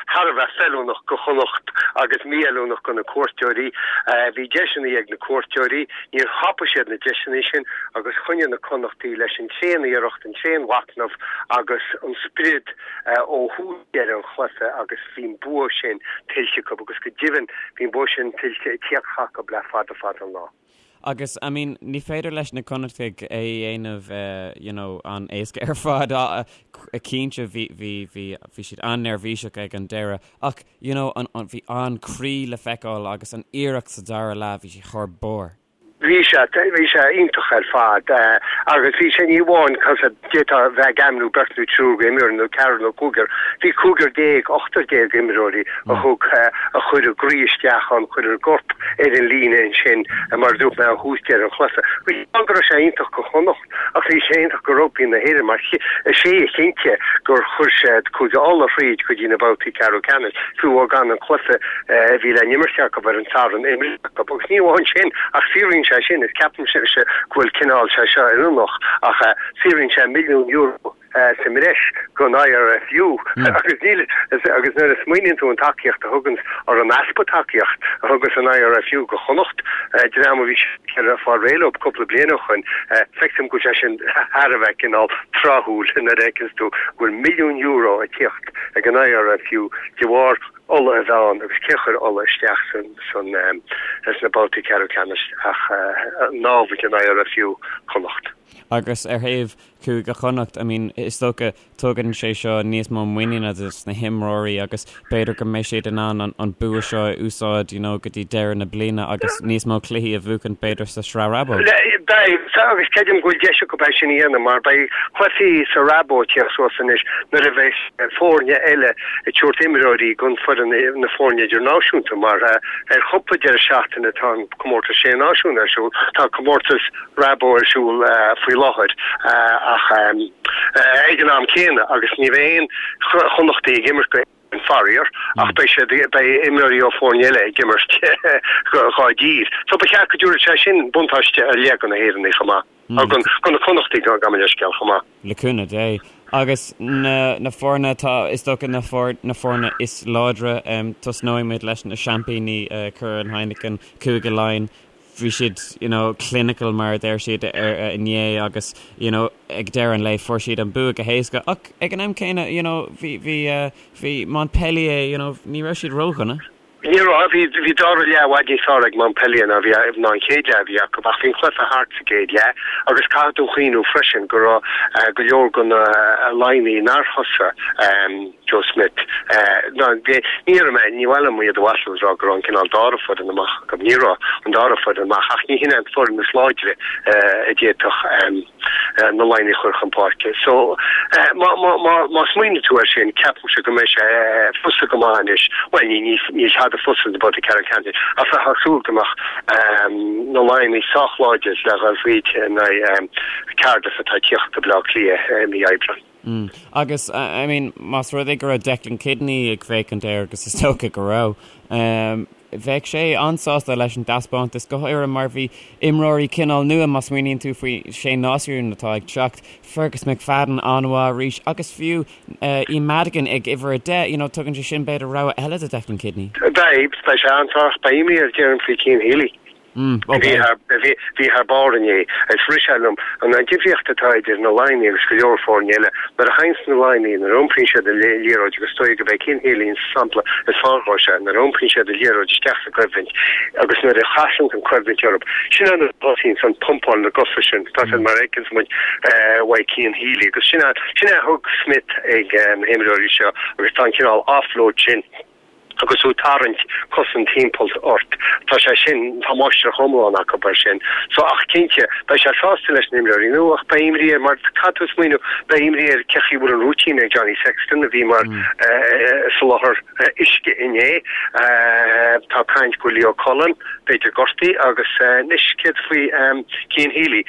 thar a bheith feiliúnach go Chonnacht agus mífheiliúnach go na cuairteoirí. Bhí deiseanna ag na cuairteoirí, níor thapaigh siad na deiseanna sin agus choinnigh na Connachtaí leis an tréan-iarracht, an tréan-mhachnamh agus an sprid ó thús deireadh an chluiche agus bhí an bua sin tuillte acu agus go deimhin bhí an bua sin tuillte ag tíocht acu le fada fada an lá. Agus, I mean, ní féidir leis na Connachtaigh é a dhéanamh, you know, an-éasca ar fad. Cinnte, bhí, bhí, bhí, bhí siad an-neirbhíseach ag an deireadh. Ach, you know, an, an, bhí an-croí le feiceáil agus an iarracht sa dara leath, bhí sé thar barr. Bhí sé, bhí sé iontach ar fad. Agus bhí sé ní amháin, cos d'fhéadfá a bheith ag ainmniú beirt nó triúr imreoirí nó ceathrar nó cúigear, bhí cúigear déag, ochtar déag imreoirí a thug, a chuir a gcroí isteach ann, chuir a gcorp ar an líne ansin, mar a dúirt mé, ó thús deireadh an chluiche. Bhí go raibh sé iontach go Chonnacht ach bhí sé iontach go rugbaí na hÉireann mar is é a chinntigh gur chuir siad Cúige Uladh thríd go dtí na babhtaí ceathrú ceannais, fiú gan an cluiche a bhí le n-imirt acu ar an Satharn imrithe acu. Agus ní amháin sin ach saothraíonn sé sin, is ceapaimse go bhfuil cineál sé seo oiriúnach ach saothraíonn sé milliún euro sa mbreis don IRFU agus níl agus nuair a smaoiníonn tú an tacaíocht a thuganns or an easpa tacaíocht a thugas an IRFU go Chonnacht, dream a bhí ag fáil réidh leo cúpla bliain ó shoin, feictear dom go bhfuil sé sin thar a bheith cineál tráthúil nuair a fheiceanns tú go bhfuil milliún euro ag tíocht ag an IRFU de bharr Uladh a bheith ann agus cé a chuir Uladh isteach san san sna babhtaí ceathrú ceannais ach námhaid an IRFU Connacht. Agus ar thaobh Chúige Chonnacht, I mean, is dócha, tugann sé seo níos mó muiníne dos na himreoirí agus b'fhéidir go mbeidh siad in ann an bua seo a úsáid, you know, go dtí deireadh na bliana agus níos mó cluichí a bhuachan b'fhéidir sa Sraith Rabo. Beidh, agus creidim go bhfuil deis acu é sin a dhéanamh mar beidh cluichí sa Rabo ag tíocht suas anois nuair a bheidh foirne eile ag tabhairt imreoirí don foireann. foireann, na foirne idirnáisiúnta mar ar chúpla deireadh seachtaine tá an comórtas Sé Náisiún ar siúl, tá comórtas Rabo ar siúl faoi láthair ach ag an am céanna agus ní bheidh aon Chonnachtaigh ag imirt go faraor ach beidh siad, beidh imreoirí ó foirne eile ag imirt dhá dtír. So ba cheart go dtabharfadh sé sin buntáiste ar leith do na hÉireannaigh chomh maith, do na Connachtaigh gabh mo leithscéal chomh maith. Le cúnamh Dé. Agus na na foirne atá, is dócha na na foirne is láidre, tosnóidh muid leis na seaimpíní Curaidh Heineken, Cúige Laighean. Bhí siad you know clinical mar a deir siad inné agus you know ag deireadh an lae fuair siad an bua go héasca ach ag an am céanna you know bhí bhí bhí Montpellier you know ní raibh siad ródhona. Ní raibh, bhí bhí dara leath i bhfad níos fearr ag Montpellier ná bhí ná an chéad leath a bhí acu ach bhí an cluiche thart sa gcéad leath agus caithfidh tú cuimhniú freisin go raibh go leor de na Laighnigh nár thosaigh Joe Schmidt. Ní déarfaidh mé, ní mhaith liom iad a mhaslú is rá go raibh an cineál dara foireann amach acu. Ní raibh an dara foireann amach ach ní hin é an foireann is láidre a d'fhéadfadh na Laighnigh a chur chun páirce. So má má smaoiníonn tú air sin, ceapaimse go mbeidh sé fusa go maith anois, bhuel ní níl tada fusa sa babhta ceathrú ceannais ach bheifeá ag súil go mbeadh na Laighnigh sách láidir le dhul fríd in aghaidh Cardiff atá ag tíocht go Baile Átha Cliath i mí Aibreáin. Mm. Agus, I mean, más rud é go raibh Declan Kidney ag féachaint air, agus is dócha go raibh, um, bheadh sé an-sásta leis an dtaispeántas, go háirithe mar bhí imreoirí cineál nua, má smaoiníonn tú faoi Sé Náisiún atá ag teacht, Fergus McFadden an-mhaith arís, agus fiú uh, Ian Madigan ag uimhir 10, you know, tugann sé sin b'fhéidir rogha eile do Declan Kidney. Beidh, beidh sé an-sásta, beidh imní air déarfainn faoi Cian Healy. Bhí thar barr inné. Is rith sé liom an difríocht atá idir na Laighnigh agus go leor foirne eile. Nuair a thaganns na Laighnigh, nuair a iompraíonn siad an liathróid, agus is dóigh gurb é Cian Healy an sampla is fearr dhó seo, nuair a iompraíonn siad an liathróid isteach sa choimhlint agus nuair a chasann an choimhlint orthu, sin é nuair a thosaíonns an pumpáil na gcosa sin, tá siad mar a fheiceanns muid uaidh Cian Healy agus sin é a thug Smith ag na himreoirí seo agus tá an cineál offload sin. agus tú ag tarraingt cosaint timpeall ort. Tá sé sin, tá máistreacht iomlán acu air sin. So, ach cinnte, beidh sé sásta leis na himreoirí nua ach beidh imní air mar caithfidh tú smaoineamh, beidh imní air cé chaoi bhfuil an routine ag Johnny Sexton a bhí mar soláthar uisce inné. Tá caint go bhfuil Leo Cullen, b'fhéidir gortaithe agus anois céard faoi Cian Healy?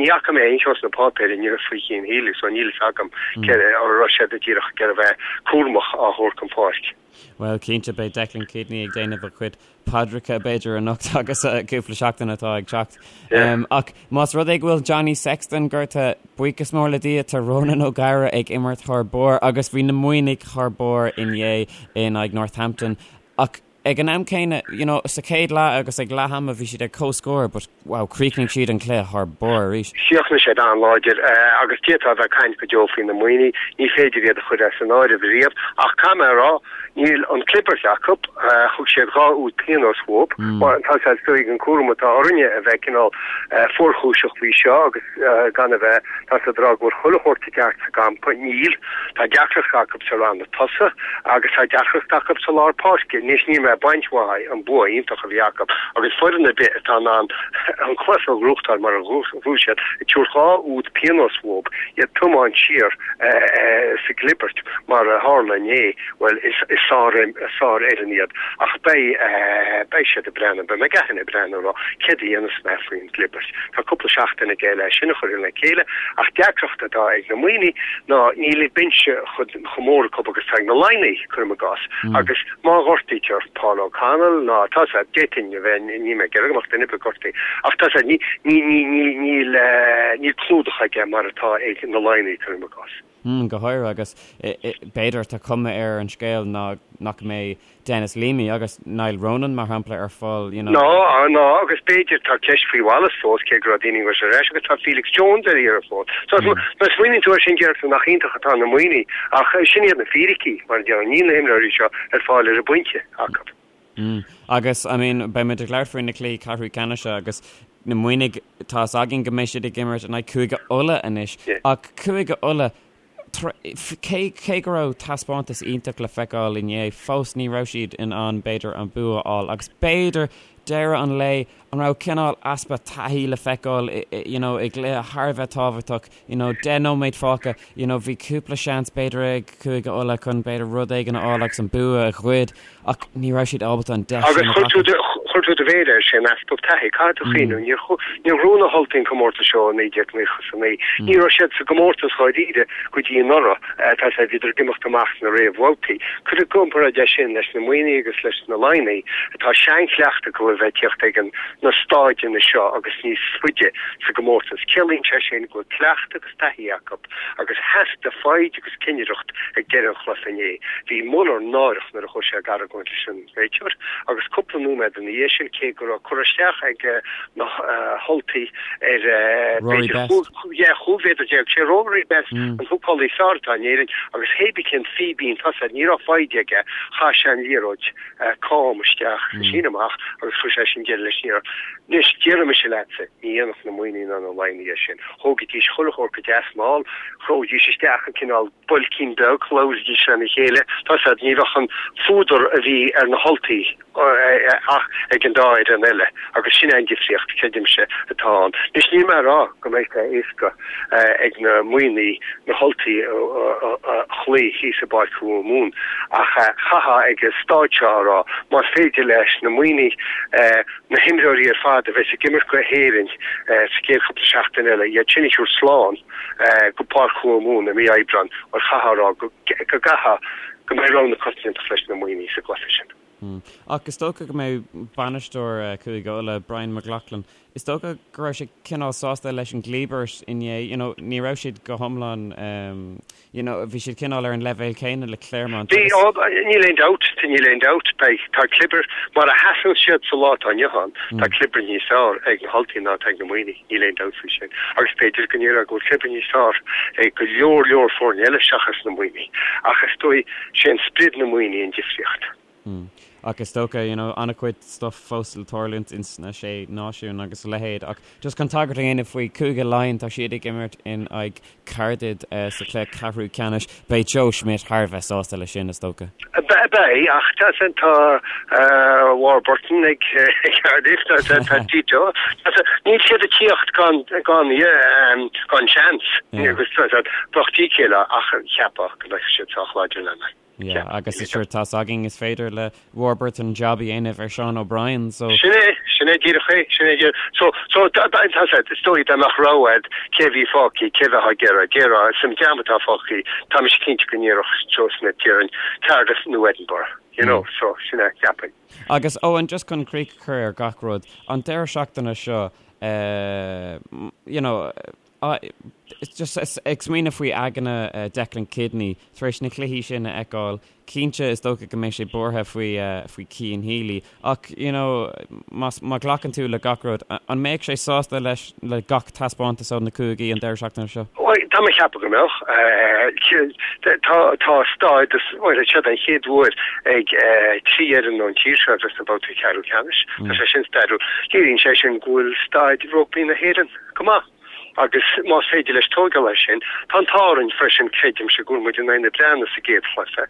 Ní fhaca mé aon cheo sna páipéir inniu faoi Chian Healy so níl fhios agam cé an raibh siad díreach ag iarraidh a bheith cúramach á thabhairt chun páirce. Bhuel, cinnte, beidh Declan Kidney ag déanamh a chuid paidreacha, b'fhéidir, anocht agus cúpla seachtain atá ag teacht. Ach más rud é go bhfuil Johnny Sexton gortaithe, buíochas mór le Dia, tá Ronan O'Gara ag imirt thar barr agus bhí na Muimhnigh thar barr inné in aghaidh Northampton. Ach Ag an am céanna, you know, sa chéad leath agus ag leath ama bhí siad ar comhscór but wow, chríochnaigh siad an cluiche thar barr arís. Chríochnaigh siad an-láidir agus d'fhéadfá a bheith ag caint go deo faoi na Muimhnigh, ní féidir iad a chur as an áireamh riamh ach caithfidh mé a rá, níl an clibirt acu, thug siad 2 úd pionóis uathu, tá sé is dóigh an cúram atá orainne a bheith cineál fuarchúiseach faoi seo agus gan a bheith, tá siad ag rá go bhfuil chuile shórt i gceart sa gcampa, níl, tá deacracht acu sa ranna tosaigh agus tá deacracht acu sa lár páirce. Anois níl mé ag baint uathu an bua iontach a bhí acu agus foireann ar bith atá in ann an cluiche a ghnóthachtáil mar a ghnóthaigh siad, ag tabhairt 2 úd pionóis uathu, iad ag tiomáint siar sa gclibirt mar a tharla inné, bhuel is sárfhoireann iad ach beidh beidh siad ag breathnú, beidh McGahan ag breathnú ag rá céard a dhéanfas mé faoin gclibirt. Tá cúpla seachtain aige le sin a chur le chéile ach deacracht atá ag na Muimhnigh ná níl an binse chomh mór acu agus atá ag na Laighnigh, cuirim i gcás, agus má ghortaítear Paul O'Connell ná tá sé, d'fhéadfainn a bheith, níl mé ag iarraidh go mbeadh duine ar bith gortaithe, ach tá sé, ní, ní, ní, ní, níl, níl clúdach aige mar atá ag na Laighnigh, cuirim i gcás. Go háirithe agus b'fhéidir tá cuma ar an scéal ná nach mbeidh Denis Leamy agus Niall Ronan, mar shampla, ar fáil, you know. Ná, ná, agus b'fhéidir tá ceist faoi Wallace fós, cé go raibh daoine ag rá ar ais, agus tá Felix Jones ar iarraidh fós. So, mm. Má smaoiníonn tú air sin, deir tú nach iontach atá na Muimhnigh, ach sin iad na fíricí, mar a déarfá, níl na himreoirí seo ar fáil ar an bpointe acu. Mm. Agus, I mean, beidh muid ag labhairt faoi na cluichí ceathrú ceannais agus na Muimhnigh, tá's againn go mbeidh siad ag imirt in aghaidh Cúige Uladh anois, ach Cúige Uladh, Cé cé go raibh taispeántas iontach le feiceáil inné, fós ní raibh siad in ann b'fhéidir an bua a fháil agus b'fhéidir deireadh an lae an raibh cineál easpa taithí le feiceáil you know i gcluiche thar a bheith tábhachtach you know 10 nóiméad fágtha you know bhí cúpla seans b'fhéidir ag Cúige Uladh chun b'fhéidir rud éigin a fháil agus an bua a ghoid ach ní raibh siad ábalta an deis sin a ghlacadh. Agus chuir tú do mhéar air sin, easpa taithí. Caithfidh tú cuimhniú, níor níor bhuaigh na hUltaigh an comórtas seo i 1999. Ní raibh siad sa gcomórtas dháiríre go dtí anuraidh, tá sé, bhíodar ag imeacht amach sna réamhbhabhtaí. Cuir i gcomparáid é sin leis na Muimhnigh agus leis na Laighnigh, atá seanchleachtadh acu a bheith ag tíocht ag an na stáideanna seo agus níos faide sa gcomórtas. Ciallaíonn sé sin go bhfuil cleachtadh agus taithí acu agus theastaigh foighid agus cinnireacht ag deireadh an chluiche inné. Bhí Muller náireach nuair a chuaigh sé ag argóint leis an réiteoir agus cúpla nóiméad ina dhiaidh sin, cé go raibh cur isteach ag na hUltaigh ar Rory Best. 15 mhéadar, sé Rory Best an húcálaí is fearr atá in Éirinn agus hébí cén fíbín tosaigh, ní raibh foighid aige, chaith sé an liathróid cam isteach sa síneadh amach agus chuir sé sin deireadh leis an iarracht. Anois, déarfaidh mise leatsa, ní dhéanfadh na Muimhnigh ná na Laighnigh é sin. Thógaidís chuile shórt go deas mall, threoidís isteach an cineál boilcín beag, labhraídís lena chéile, tá 'fhios a'd, ní bheadh an fuadar a bhí ar na hUltaigh ach ag an dá fhoireann eile agus sin é an difríocht, creidimse, atá ann. Anois, níl mé a rá go mbeidh sé éasca ag na Muimhnigh na hUltaigh a chloí thíos i bPáirc Thuamhumhan ach chaithfeá ag an stáid seo a rá, más féidir leis na Muimhnigh na himreoirí ar fad a bheas ag imirt go hÉirinn sa gcéad chúpla seachtain eile, iad sin a thabhairt slán go Páirc Thuamhumhan i mí Aibreáin, bhuel chaithfeá a rá go gcaithfeá go mbeidh rogha na coitiantachta leis na Muimhnigh sa gcluiche sin. Ach is dócha go mbeidh bainisteoir Chúige Uladh, Brian McLaughlin, is dócha go raibh sé cineál sásta leis an gclíbirt inné, you know, ní raibh siad go hiomlán, you know, bhí siad cineál ar an leibhéal céanna le Clermont Bhí, agus. níl aon dabht, níl aon dabht, beidh, tá clibir, mar a sheasann siad sa lá atá inniu ann, tá clibir níos fearr ag na hUltaigh ná atá ag na Muimhnigh, níl aon dabht faoi sin. Agus b'fhéidir go ndéarfá go bhfuil clibir níos fearr ag go leor leor foirne eile seachas na Muimhnigh. Ach is dóigh, sé an sprid na Muimhnigh an difríocht. Ach is dócha, you know, an-chuid stuff fós le tarlúint ins na Sé Náisiún agus a leithéid. Ach just chun tagairt a dhéanamh faoi Cúige Laighean, tá siad ag imirt in aghaidh Caerdydd sa chluiche ceathrú ceannais. Beidh Joe Schmidt thar a bheith sásta leis sin, is dócha. Beidh, ach tá tá Warburton ag Cardiff, tá tá Tito. Níl siad ag tíocht gan gan gan seans. Agus bheadh dícéille ach cheapfá go mbeadh siad sách láidir lena. Yeah, agus sure tá's againn is féidir le Warburton jab a dhéanamh ar Sean O'Brien, so. Sin é, sin é díreach é, sin é díreach. So, so, tá sé, is dóigh dá mbeadh rogha agat cé a bhí fágtha, cé a bheifeá ag iarraidh, déarfá, san dream atá fágtha, tá mise cinnte go ndéarfadh Joe Schmidt, déarfainn, Cardiff nó Edinburgh, you know, so, sin é, cheapfainn. Agus Eoin, just chun críoch a chur ar gach rud, an deireadh seachtaine seo, eh, you know, Just ag smaoineamh faoi aigne Declan Kidney tar éis na cluichí sin a fheiceáil, cinnte is dócha go mbeidh sé buartha faoi faoi Cian Healy ach you know más má ghlacann tú le gach rud, an mbeadh sé sásta leis le gach taispeántas ó na cúigí an deireadh seachtaine seo? Bhuel, tá mé ag ceapadh go mbeadh. Tá tá stádas, bhuel, seo den chéad uair ag 3 fhoireann ón tír seo a bheith sna babhtaí ceathrú ceannais. Tá sé sin stairiúil. Léiríonn sé sin go bhfuil staid rugbaí na hÉireann go maith. Agus más féidir leis tóigeáil air sin, tá an t-ádh orainn freisin, creidimse, go bhfuair muid in aghaidh na Breataine sa gcéad chluiche.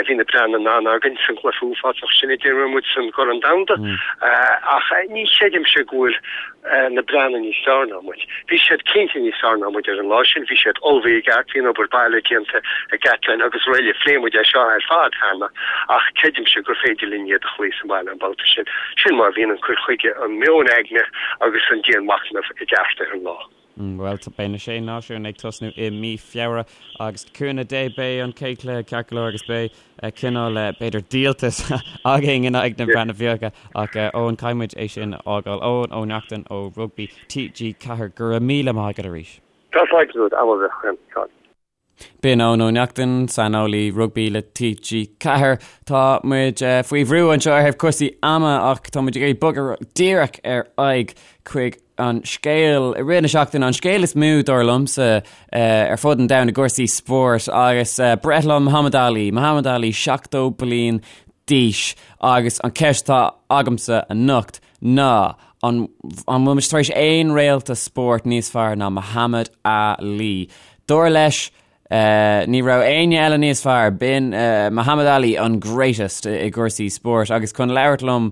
Bhí na Breatnaigh in ann againn san gcluiche uafásach sin a d'imir muid san gCorn Domhanda. Ach ní chreidimse go bhfuil na Breatnaigh níos fearr ná muid. Bhí siad cinnte níos fearr ná muid ar an lá sin, bhí siad ullmhaithe i gceart, bhí an obair baile déanta ag Gatland agus araile. Phléigh muid é seo ar fad cheana ach creidimse gur féidir linn iad a chloí sa mbaile an babhta sin. Sin mar a bhíonn an cur chuige, an meon aigne agus an dianmhachnamh i gceart ar an lá. Bhuel, beidh na Sé Náisiún ag tosnú i mí Feabhra agus le cúnamh Dé beidh an chéad chluiche ceart go leor agus beidh cineál, b'fhéidir, díoltas againn in aghaidh na Breataine Bige ach Eoin, caithfidh muid é sin a fhágáil. Eoin Ó Neachtain ó Rugbaí TG4, go raibh míle maith agat arís. Tá fáilte romhat, am a bheith againn. B'in Eoin Ó Neachtain, saineolaí rugbaí le TG4. Tá muid faoi bhrú anseo ar thaobh cúrsaí ama ach tá muid ag iarraidh bogadh díreach ar aghaidh chuig an scéal i rith na seachtaine, an scéal is mó dar liomsa ar fud an domhain i gcúrsaí spóirt agus breithlá Muhammad Ali, Muhammad Ali 70 bliain d'aois agus an ceist atá agamsa anocht ná an an bhfuil muid tar éis aon réalta spóirt níos fearr ná Muhammad Ali? Dar leis. Ní raibh éinne eile níos fearr, b'in Muhammad Ali an greatest i gcúrsaí spóirt agus chun labhairt liom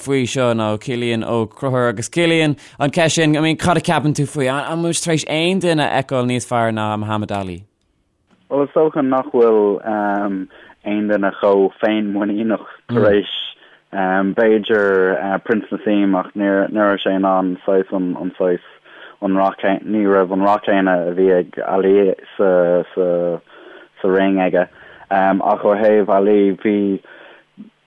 faoi seo ná Cillian Ó Conchúir agus Cillian, an ceist sin, I mean, cad a ceapann tú faoi? An bhfuil muid tar éis aon duine a fheiceáil níos fearr ná Muhammad Ali? Bhuel, is dócha nach bhfuil aon duine chomh féinmhuiníneach tar éis B'fhéidir Prince Naseem ach ní raibh sé in ann saghas an saghas an rath ní raibh an rath céanna a bhí ag Ali sa sa sa ring aige. Ach ó thaobh Ali bhí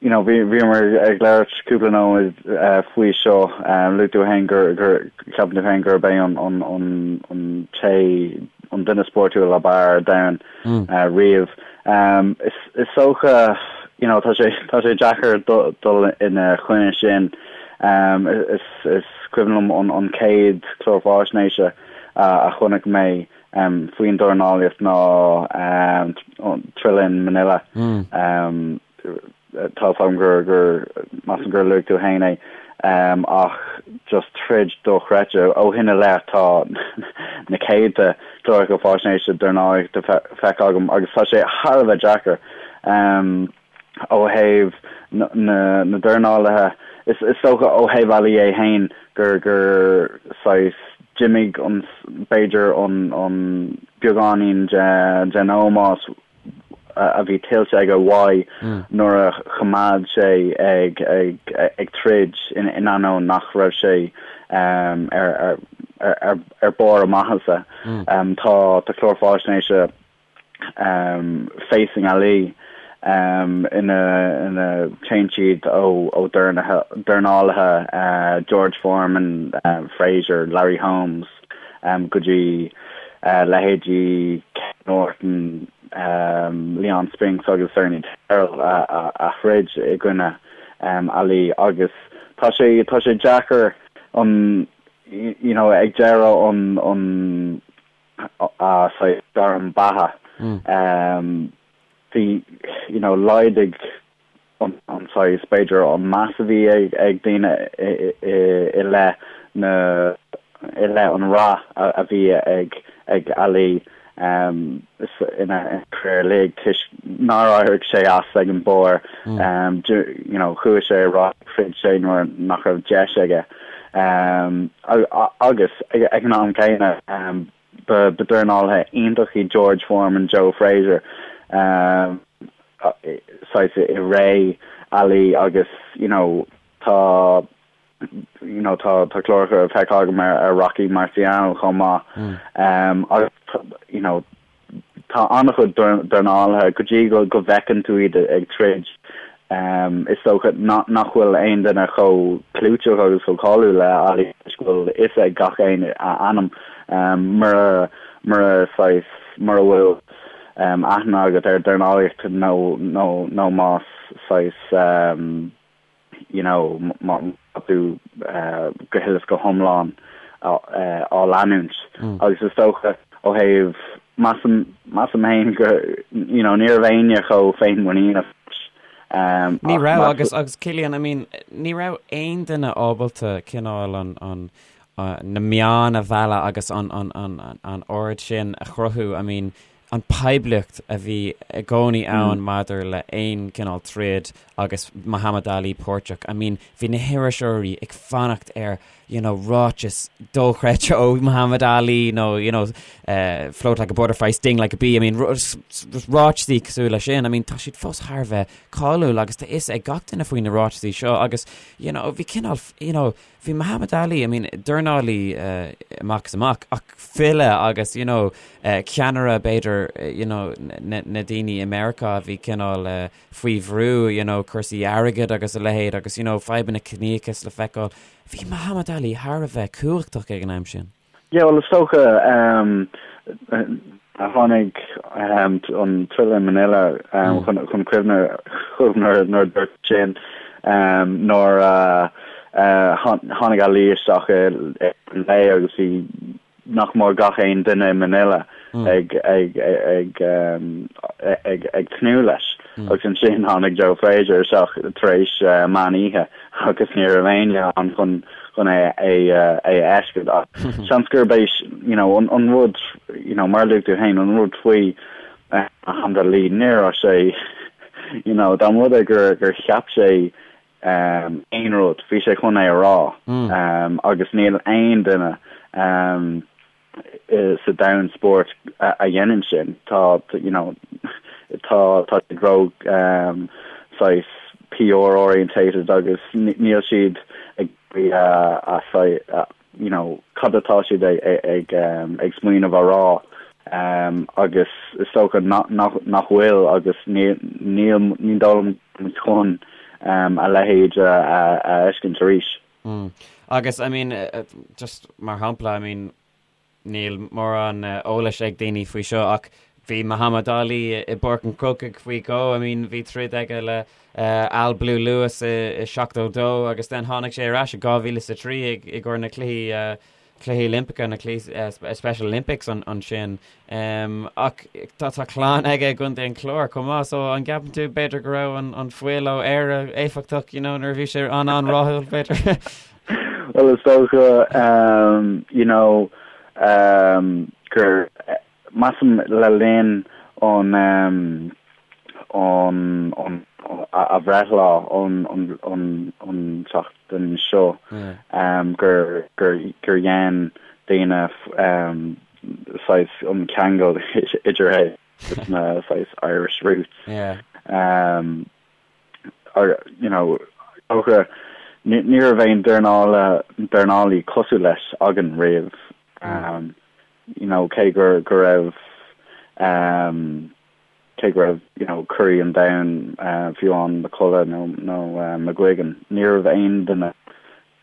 you know bhí bhíomar ag labhairt cúpla nóiméad faoi seo luaigh tú féin gur gur ceapann tú féin gurb é an an an an té an duine spórtúil ab fhearr ar domhan riamh. Is dócha, you know, tá sé tá sé deacair dul ina choinne sin. Is is cuimhin liom an an chéad chlár faisnéise a chonaic mé faoin dornálaíocht ná Thrilla in Manila. Tá 's agam gur gur measaim gur luaigh tú féin é ach just troid dochreidte. Ó shin i leith tá na céadta cláracha faisnéise dornálaíochta feicthe agam agus tá sé thar a bheith deacair ó thaobh na na dornálaithe. Is is dócha ó thaobh Ali é féin gur gur saghas d'imigh an b'fhéidir an an beagáinín de den ómós a bhí tuillte aige uaidh nuair a choimeád sé ag ag troid in ainneoin nach raibh sé ar ar barr a maitheasa. Tá tá clár faisnéise Facing Ali ina ina téann siad ó ó dornálaithe George Foreman, Frazier, Larry Holmes, go dtí leithéidí Ken Norton, Leon Spinks agus Ernie Terrell a throid i gcoinne Ali agus tá sé tá sé deacair an you know ag deireadh an an a saghas gairm beatha bhí you know laghdaigh an saghas, b'fhéidir, an meas a bhí ag daoine i leith na, i leith an rath a bhí ag ag Ali ina career uilig toisc nár éirigh sé as ag an barr, you know, chuaigh sé ar aghaidh, throid sé nuair nach raibh deis aige. Agus ag an am céanna, Ba dornálaithe iontach iad George Foreman, Joe Frazier, saghas i ré Ali agus you know tá you know tá tá cláracha feicthe agam ar ar Rocky Marciano chomh maith agus you know tá an-chuid dornálaithe go dtí go go bhfeiceann tú iad ag troid Is dócha nach bhfuil aon duine chomh clúiteach agus chomh cáiliúil le Ali toisc go bhfuil fhios ag gach éinne a ainm. Mura mura saghas mura bhfuil aithne agat ar dornálaíocht nó nó nó más saghas you know má tá tú go huile is go hiomlán á leanúint. Agus is dócha ó thaobh Measaim, measaim féin go, you know, ní raibh éinne chomh féinmhuiníneach leis. Ní raibh agus, agus Cillian, I mean, ní raibh aon duine ábalta cineál an, an, na meáin a mhealladh agus an, an, an, an aird sin a chruthú, I mean, an poiblíocht a bhí i gcónaí ann maidir le aon cineál troid agus Muhammad Ali páirteach, I mean, bhí na hiriseoirí ag fanacht ar you know, ráiteas dochreidte ó Muhammad Ali nó, you know, uh, float like a butterfly, sting like a bee, I mean, ráiteasaí cosúil leis sin, I mean, tá siad fós thar a bheith cáiliúil agus tá fhios ag gach duine faoi na ráiteasaí seo agus, you know, bhí cineál, you know, bhí Muhammad Ali, I mean, dornálaí uh, amach is amach, ach file agus, you know, uh, ceannaire b'fhéidir, uh, you know, na, na daoine i Meiriceá a bhí cineál uh, faoi bhrú, you know, cúrsaí airgid agus a leithéid agus, you know, fadhbanna ciníochais le feiceáil. Bhí Muhammad Ali thar a bheith cumhachtach ag an am sin. Yeah, bhuel, is dócha, tháinig an Thrilla in Manila chun cuimhne chugam nuair a dúirt sin, nuair a tháinig Ali isteach i lae agus bhí nach mór gach aon duine i Manila ag ag ag ag ag tnúth leis. Agus ansin tháinig Joe Frazier isteach tar éis meán oíche agus ní raibh éinne ann chun chun é é a fheiscint. Ach seans gurb é you know an an rud you know mar a luaigh tú féin an rud faoi Muhammad Ali ní raibh sé you know dá mba rud é gur gur cheap sé aon rud bhí sé chun é a rá agus níl aon duine sa domhan spóirt a dhéanann sin. Tá, you know, tá tá siad ró saghas PR orientated agus níl siad ag a you know, cad atá siad ag ag ag smaoineamh a rá agus is dócha nach nach bhfuil agus níl níl ní dóigh liom chun a leithéid a a fheiscint arís. Mm. Agus, I mean, just mar shampla, I mean, níl mórán eolais ag daoine faoi seo ach bhí Muhammad Ali i bPáirc an Chrócaigh faoi dhó, I mean, bhí troid aige le Al Blue Lewis i 72 agus then tháinig sé ar ais i 2003 i gcomhair na cluichí Cluichí Oilimpeacha, na Cluichí Special Olympics ansin. Ach tá tá clann aige i gContae an Chláir chomh maith, so an gceapann tú b'fhéidir go raibh an an fuil ó Éire éifeachtach, you know, nuair a bhí sé an-an-rathúil, b'fhéidir? Well, is dócha, you know, gur Measaim le linn an an an a bhreithlá an an an tseachtain seo gur gur gur dhein daoine saghas an ceangal idir é agus na saghas Irish roots. You know, dócha ní raibh aon dornála dornálaí cosúil leis againn riamh. you know, cé gur go raibh um, cé go raibh you know, curaidh an domhain uh, fiú amháin McCullough nó, nó uh, McGuigan, ní raibh aon duine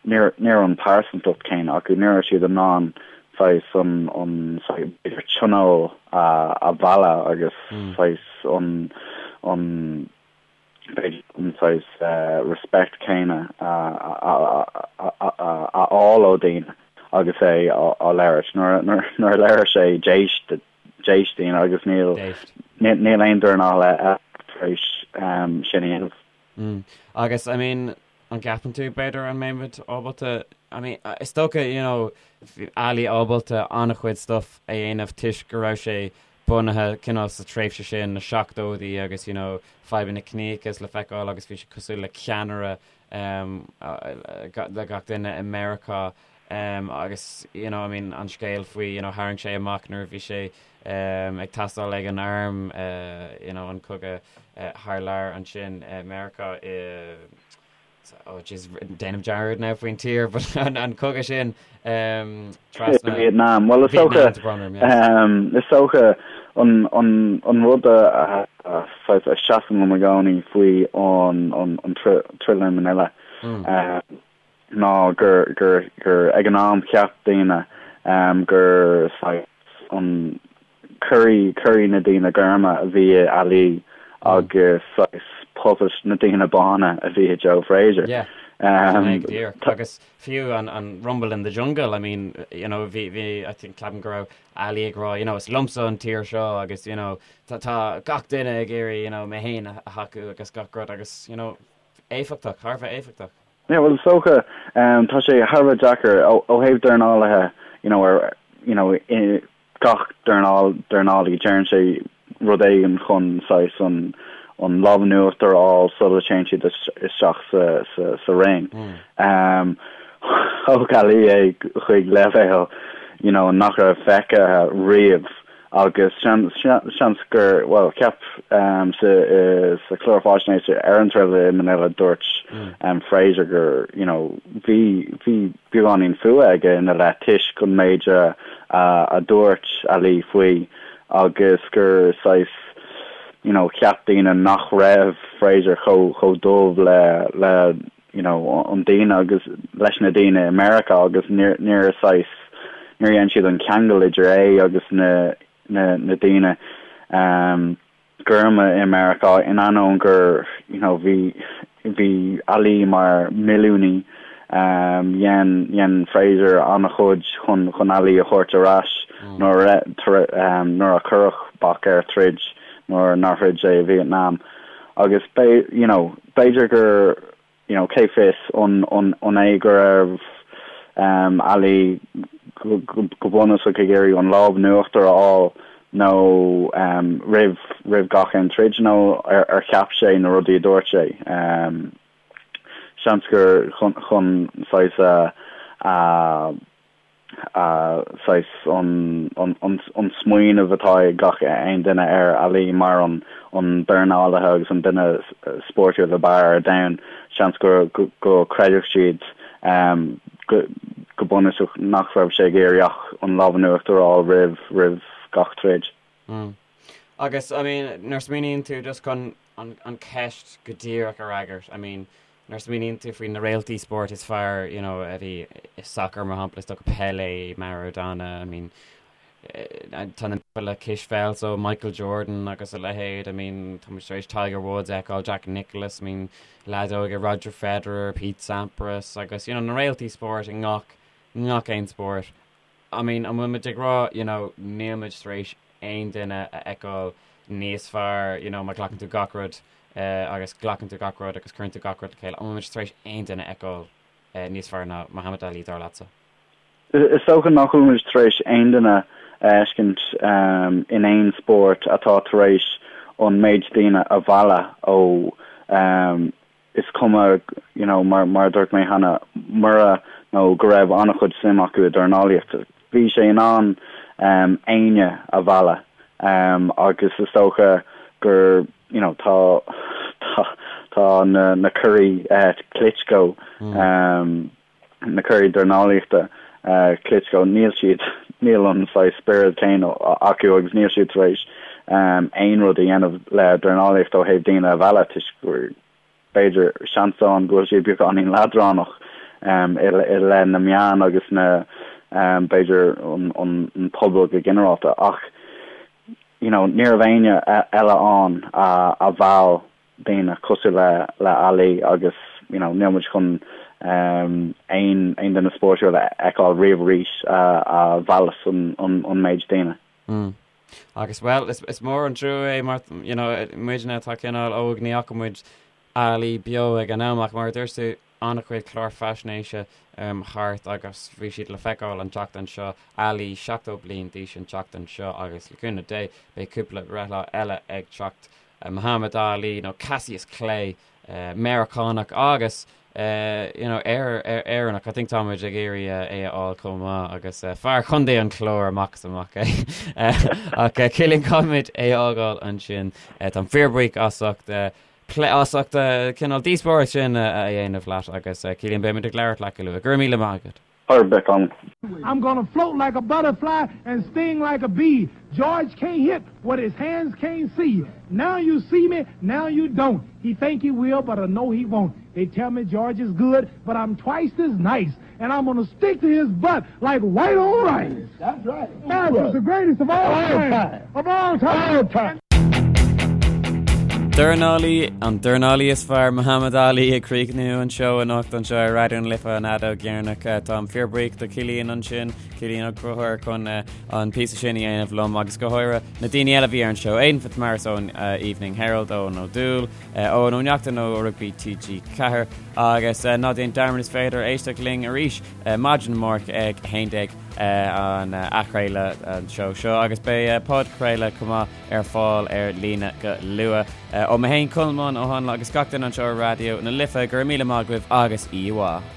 ní raibh an pearsantacht céanna acu, ní raibh siad in ann saghas an, an saghas, b'fhéidir tionól a, a mhealladh agus mm. saghas an, an b'fhéidir an saghas respect céanna a fháil ó daoine agus é á labhairt. Nuair a labhair sé d'éist d'éist daoine agus níl níl aon dornálaí eile tar éis sin a dhéanamh. Agus I mean an gceapann tú b'fhéidir an mbeimid ábalta I mean is dócha you know bhí Ali ábalta an-chuid stuff a dhéanamh toisc go raibh sé bunaithe cineál sa tréimhse sin, na seachtóidí agus you know fadhbanna ciníochais le feiceáil agus bhí sé cosúil le ceannaire um, le gach duine i Meiriceá um, agus you know I mean an scéal faoi you know tharraing sé amach nuair a bhí sé um, ag teastáil ag an arm uh, you know an cogadh uh, thar lear ansin i Meiriceá i Oh jeez, déanaim dearmad now faoin tír, but an, an cogadh sin um, trasna Vietnam. Well, is dócha um, is dócha an, an, an rud a, a, a, a seasann liom i gcónaí faoi an, an, an troid i Manila mm. um, ná gur, gur, gur ag an am cheap daoine um, gur saghas an Curaidh, curaidh na daoine gorma a bhí i Ali agus saghas puppet na daoine bána a bhí i Joe Frazier. Yeah. Um, díreach. Agus fiú an, an Rumble in the Jungle, I mean, you know, bhí, bhí, I think, ceapaim go raibh Ali ag rá, you know, is liomsa an tír seo agus, you know, tá, tá gach duine ag iarraidh, you know, mé féin a thacú agus gach rud agus, you know, éifeachtach, thar a bheith éifeachtach. Yeah, well, is dócha, um, tá sé thar a bheith deacair ó, ó thaobh dornálaithe, you know, ar, you know, i, gach dornálaí, déanann sé rud éigin chun saghas an an lámh in uachtar a fháil sula dtéann siad isteach sa ring. Thóg Ali é chuig leibhéal you know nach raibh feicthe riamh agus seans gur, bhuel, cheap sa chlár faisnéise ar an troid i Manila dúirt Frazier gur you know bhí bhí beagáinín fuath aige ina leith toisc an méid a a dúirt Ali faoi agus gur saghas you know cheap daoine nach raibh Frazier chomh chomh dubh le le you know an daoine agus leis na daoine i Meiriceá agus níor níor saghas níor dhein siad an ceangal idir é agus na na na daoine um, gorma i Meiriceá in ainneoin gur you know bhí bhí Ali mar milliúnaí um, dhein dhein Frazier an-chuid chun chun Ali a thabhairt ar ais mm. nuair a um, nuair a cuireadh bac air troid nuair nár throid sé i Vietnam. Agus you know, b'fhéidir gur, you know, cé fios, an, an, an é go raibh um, Ali go, go, go bunúsach ag iarraidh an lámh in uachtar a fháil nó um, roimh, roimh gach aon troid nó ar, ar cheap sé na rudaí a dúirt sé. Um, seans gur chun, chun saghas a, a, saghas an smaoineamh atá ag gach aon duine ar Ali mar an dornálaithe agus an duine spórtúil ab fhearr ar domhan, seans go go gcreidfeadh siad go bunúsach nach raibh sé ag iarraidh ach an lámh in uachtar a fháil roimh roimh gach troid. Agus, I mean, nuair a smaoiníonn tú just chun an ceist go díreach a fhreagairt, I mean, Nuair a smaoiníonn tú faoi na réaltaí spóirt is fearr, you know, a bhí i sacar, mar shampla, is dócha Pelé, Maradona, I mean, tá na le cispheil, so Michael Jordan agus a leithéid, I mean, tá muid tar éis Tiger Woods a fheiceáil, Jack Nicklaus, I mean, leadóige, Roger Federer, Pete Sampras agus, you know, na réaltaí spóirt i ngach, ngach aon spórt. I mean, an bhfuil muid ag rá, you know, níl muid tar éis aon duine a fheiceáil níos fearr, you know, má ghlacann tú gach rud agus glacann tú gach rud agus cuireann tú gach rud le chéile, an bhfuil muid tar éis aon duine a fheiceáil níos fearr ná Muhammad Ali, dar leatsa? Is dócha nach bhfuil muid tar éis aon duine a fheiscint in aon spórt atá tar éis an méid daoine a mhealladh ó is cuma, you know, mar, mar a dúirt mé cheana, mura nó go raibh an-chuid suim acu i dornálaíocht, bhí sé in ann um, éinne a mhealladh um, agus is dócha gur, you know, tá, tá, tá na, na curaidh uh, Klitschko, mm. um, na curaidh dornálaíochta uh, Klitschko, níl siad, níl an saghas spiorad céanna acu agus níl siad tar éis um, aon rud a dhéanamh le dornálaíocht ó thaobh daoine a mhealladh toisc gur b'fhéidir seans ann go bhfuil siad beagáinín leadránach um, i, i leith na meán agus na um, b'fhéidir an, an, an pobal go ginearálta ach you know, ní raibh éinne eile ann a, a mheall daoine cosúil le le Ali agus you know níl muid chun um, aon aon duine spórtúil a fheiceáil riamh arís a a mheallas an an an méid daoine. Mm. Agus well is, is mór an trua é mar you know, muidne atá cineál óg ní fhaca muid Ali beo ag an am ach mar a dúirt tú an-chuid clár faisnéise um, thart agus bhí siad le feiceáil an tseachtain seo Ali 70 bliain d'aois an tseachtain seo agus le cúnamh Dé beidh cúpla breithlá eile ag teacht Muhammad Ali nó Cassius Clay, Meiriceánach agus you know Éireannach. I think tá muid ag iarraidh é a fháil chomh maith agus fear Chontae an Chláir amach is amach é. Ach Cillian caithfimid é a fhágáil ansin. Táim fíorbhuíoch as ucht plé as ucht cineál díospóireacht sin a dhéanamh leat agus Cillian beimid ag labhairt leat go luath. Go raibh míle maith agat. Ar bith ann. I'm gonna float like a butterfly and sting like a bee. George can't hit what his hands can't see. Now you see me, now you don't. He think he will, but I know he won't. They tell me George is good, but I'm twice as nice. And I'm gonna stick to his butt like white on rice. That's right. George is the greatest of all time. Of all time. All time. Dornálaí, an dornálaí is fearr, Muhammad Ali ag críochnú an seó anocht anseo ar Raidió na Life an fheadóg dheireanach. Táim fíorbhuíoch do Cillian ansin, Cillian Ó Conchúir chun an píosa sin a dhéanamh liom agus go háirithe na daoine eile a bhí ar an seó, Aidan Fitzmaurice ón Evening Herald, Eoin Ó Dúill, Eoin Ó Neachtain ó Rugbaí TG4 agus ná déan dearmad is féidir éisteacht linn arís maidin amárach ag 11 an athchraoladh an seó seo agus beidh podchraoladh chomh maith ar fáil ar líne go luath. Ó mé féin Colmán Ó hAnla agus gach duine anseo ar Raidió na Life, go raibh míle maith agaibh agus oíche mhaith.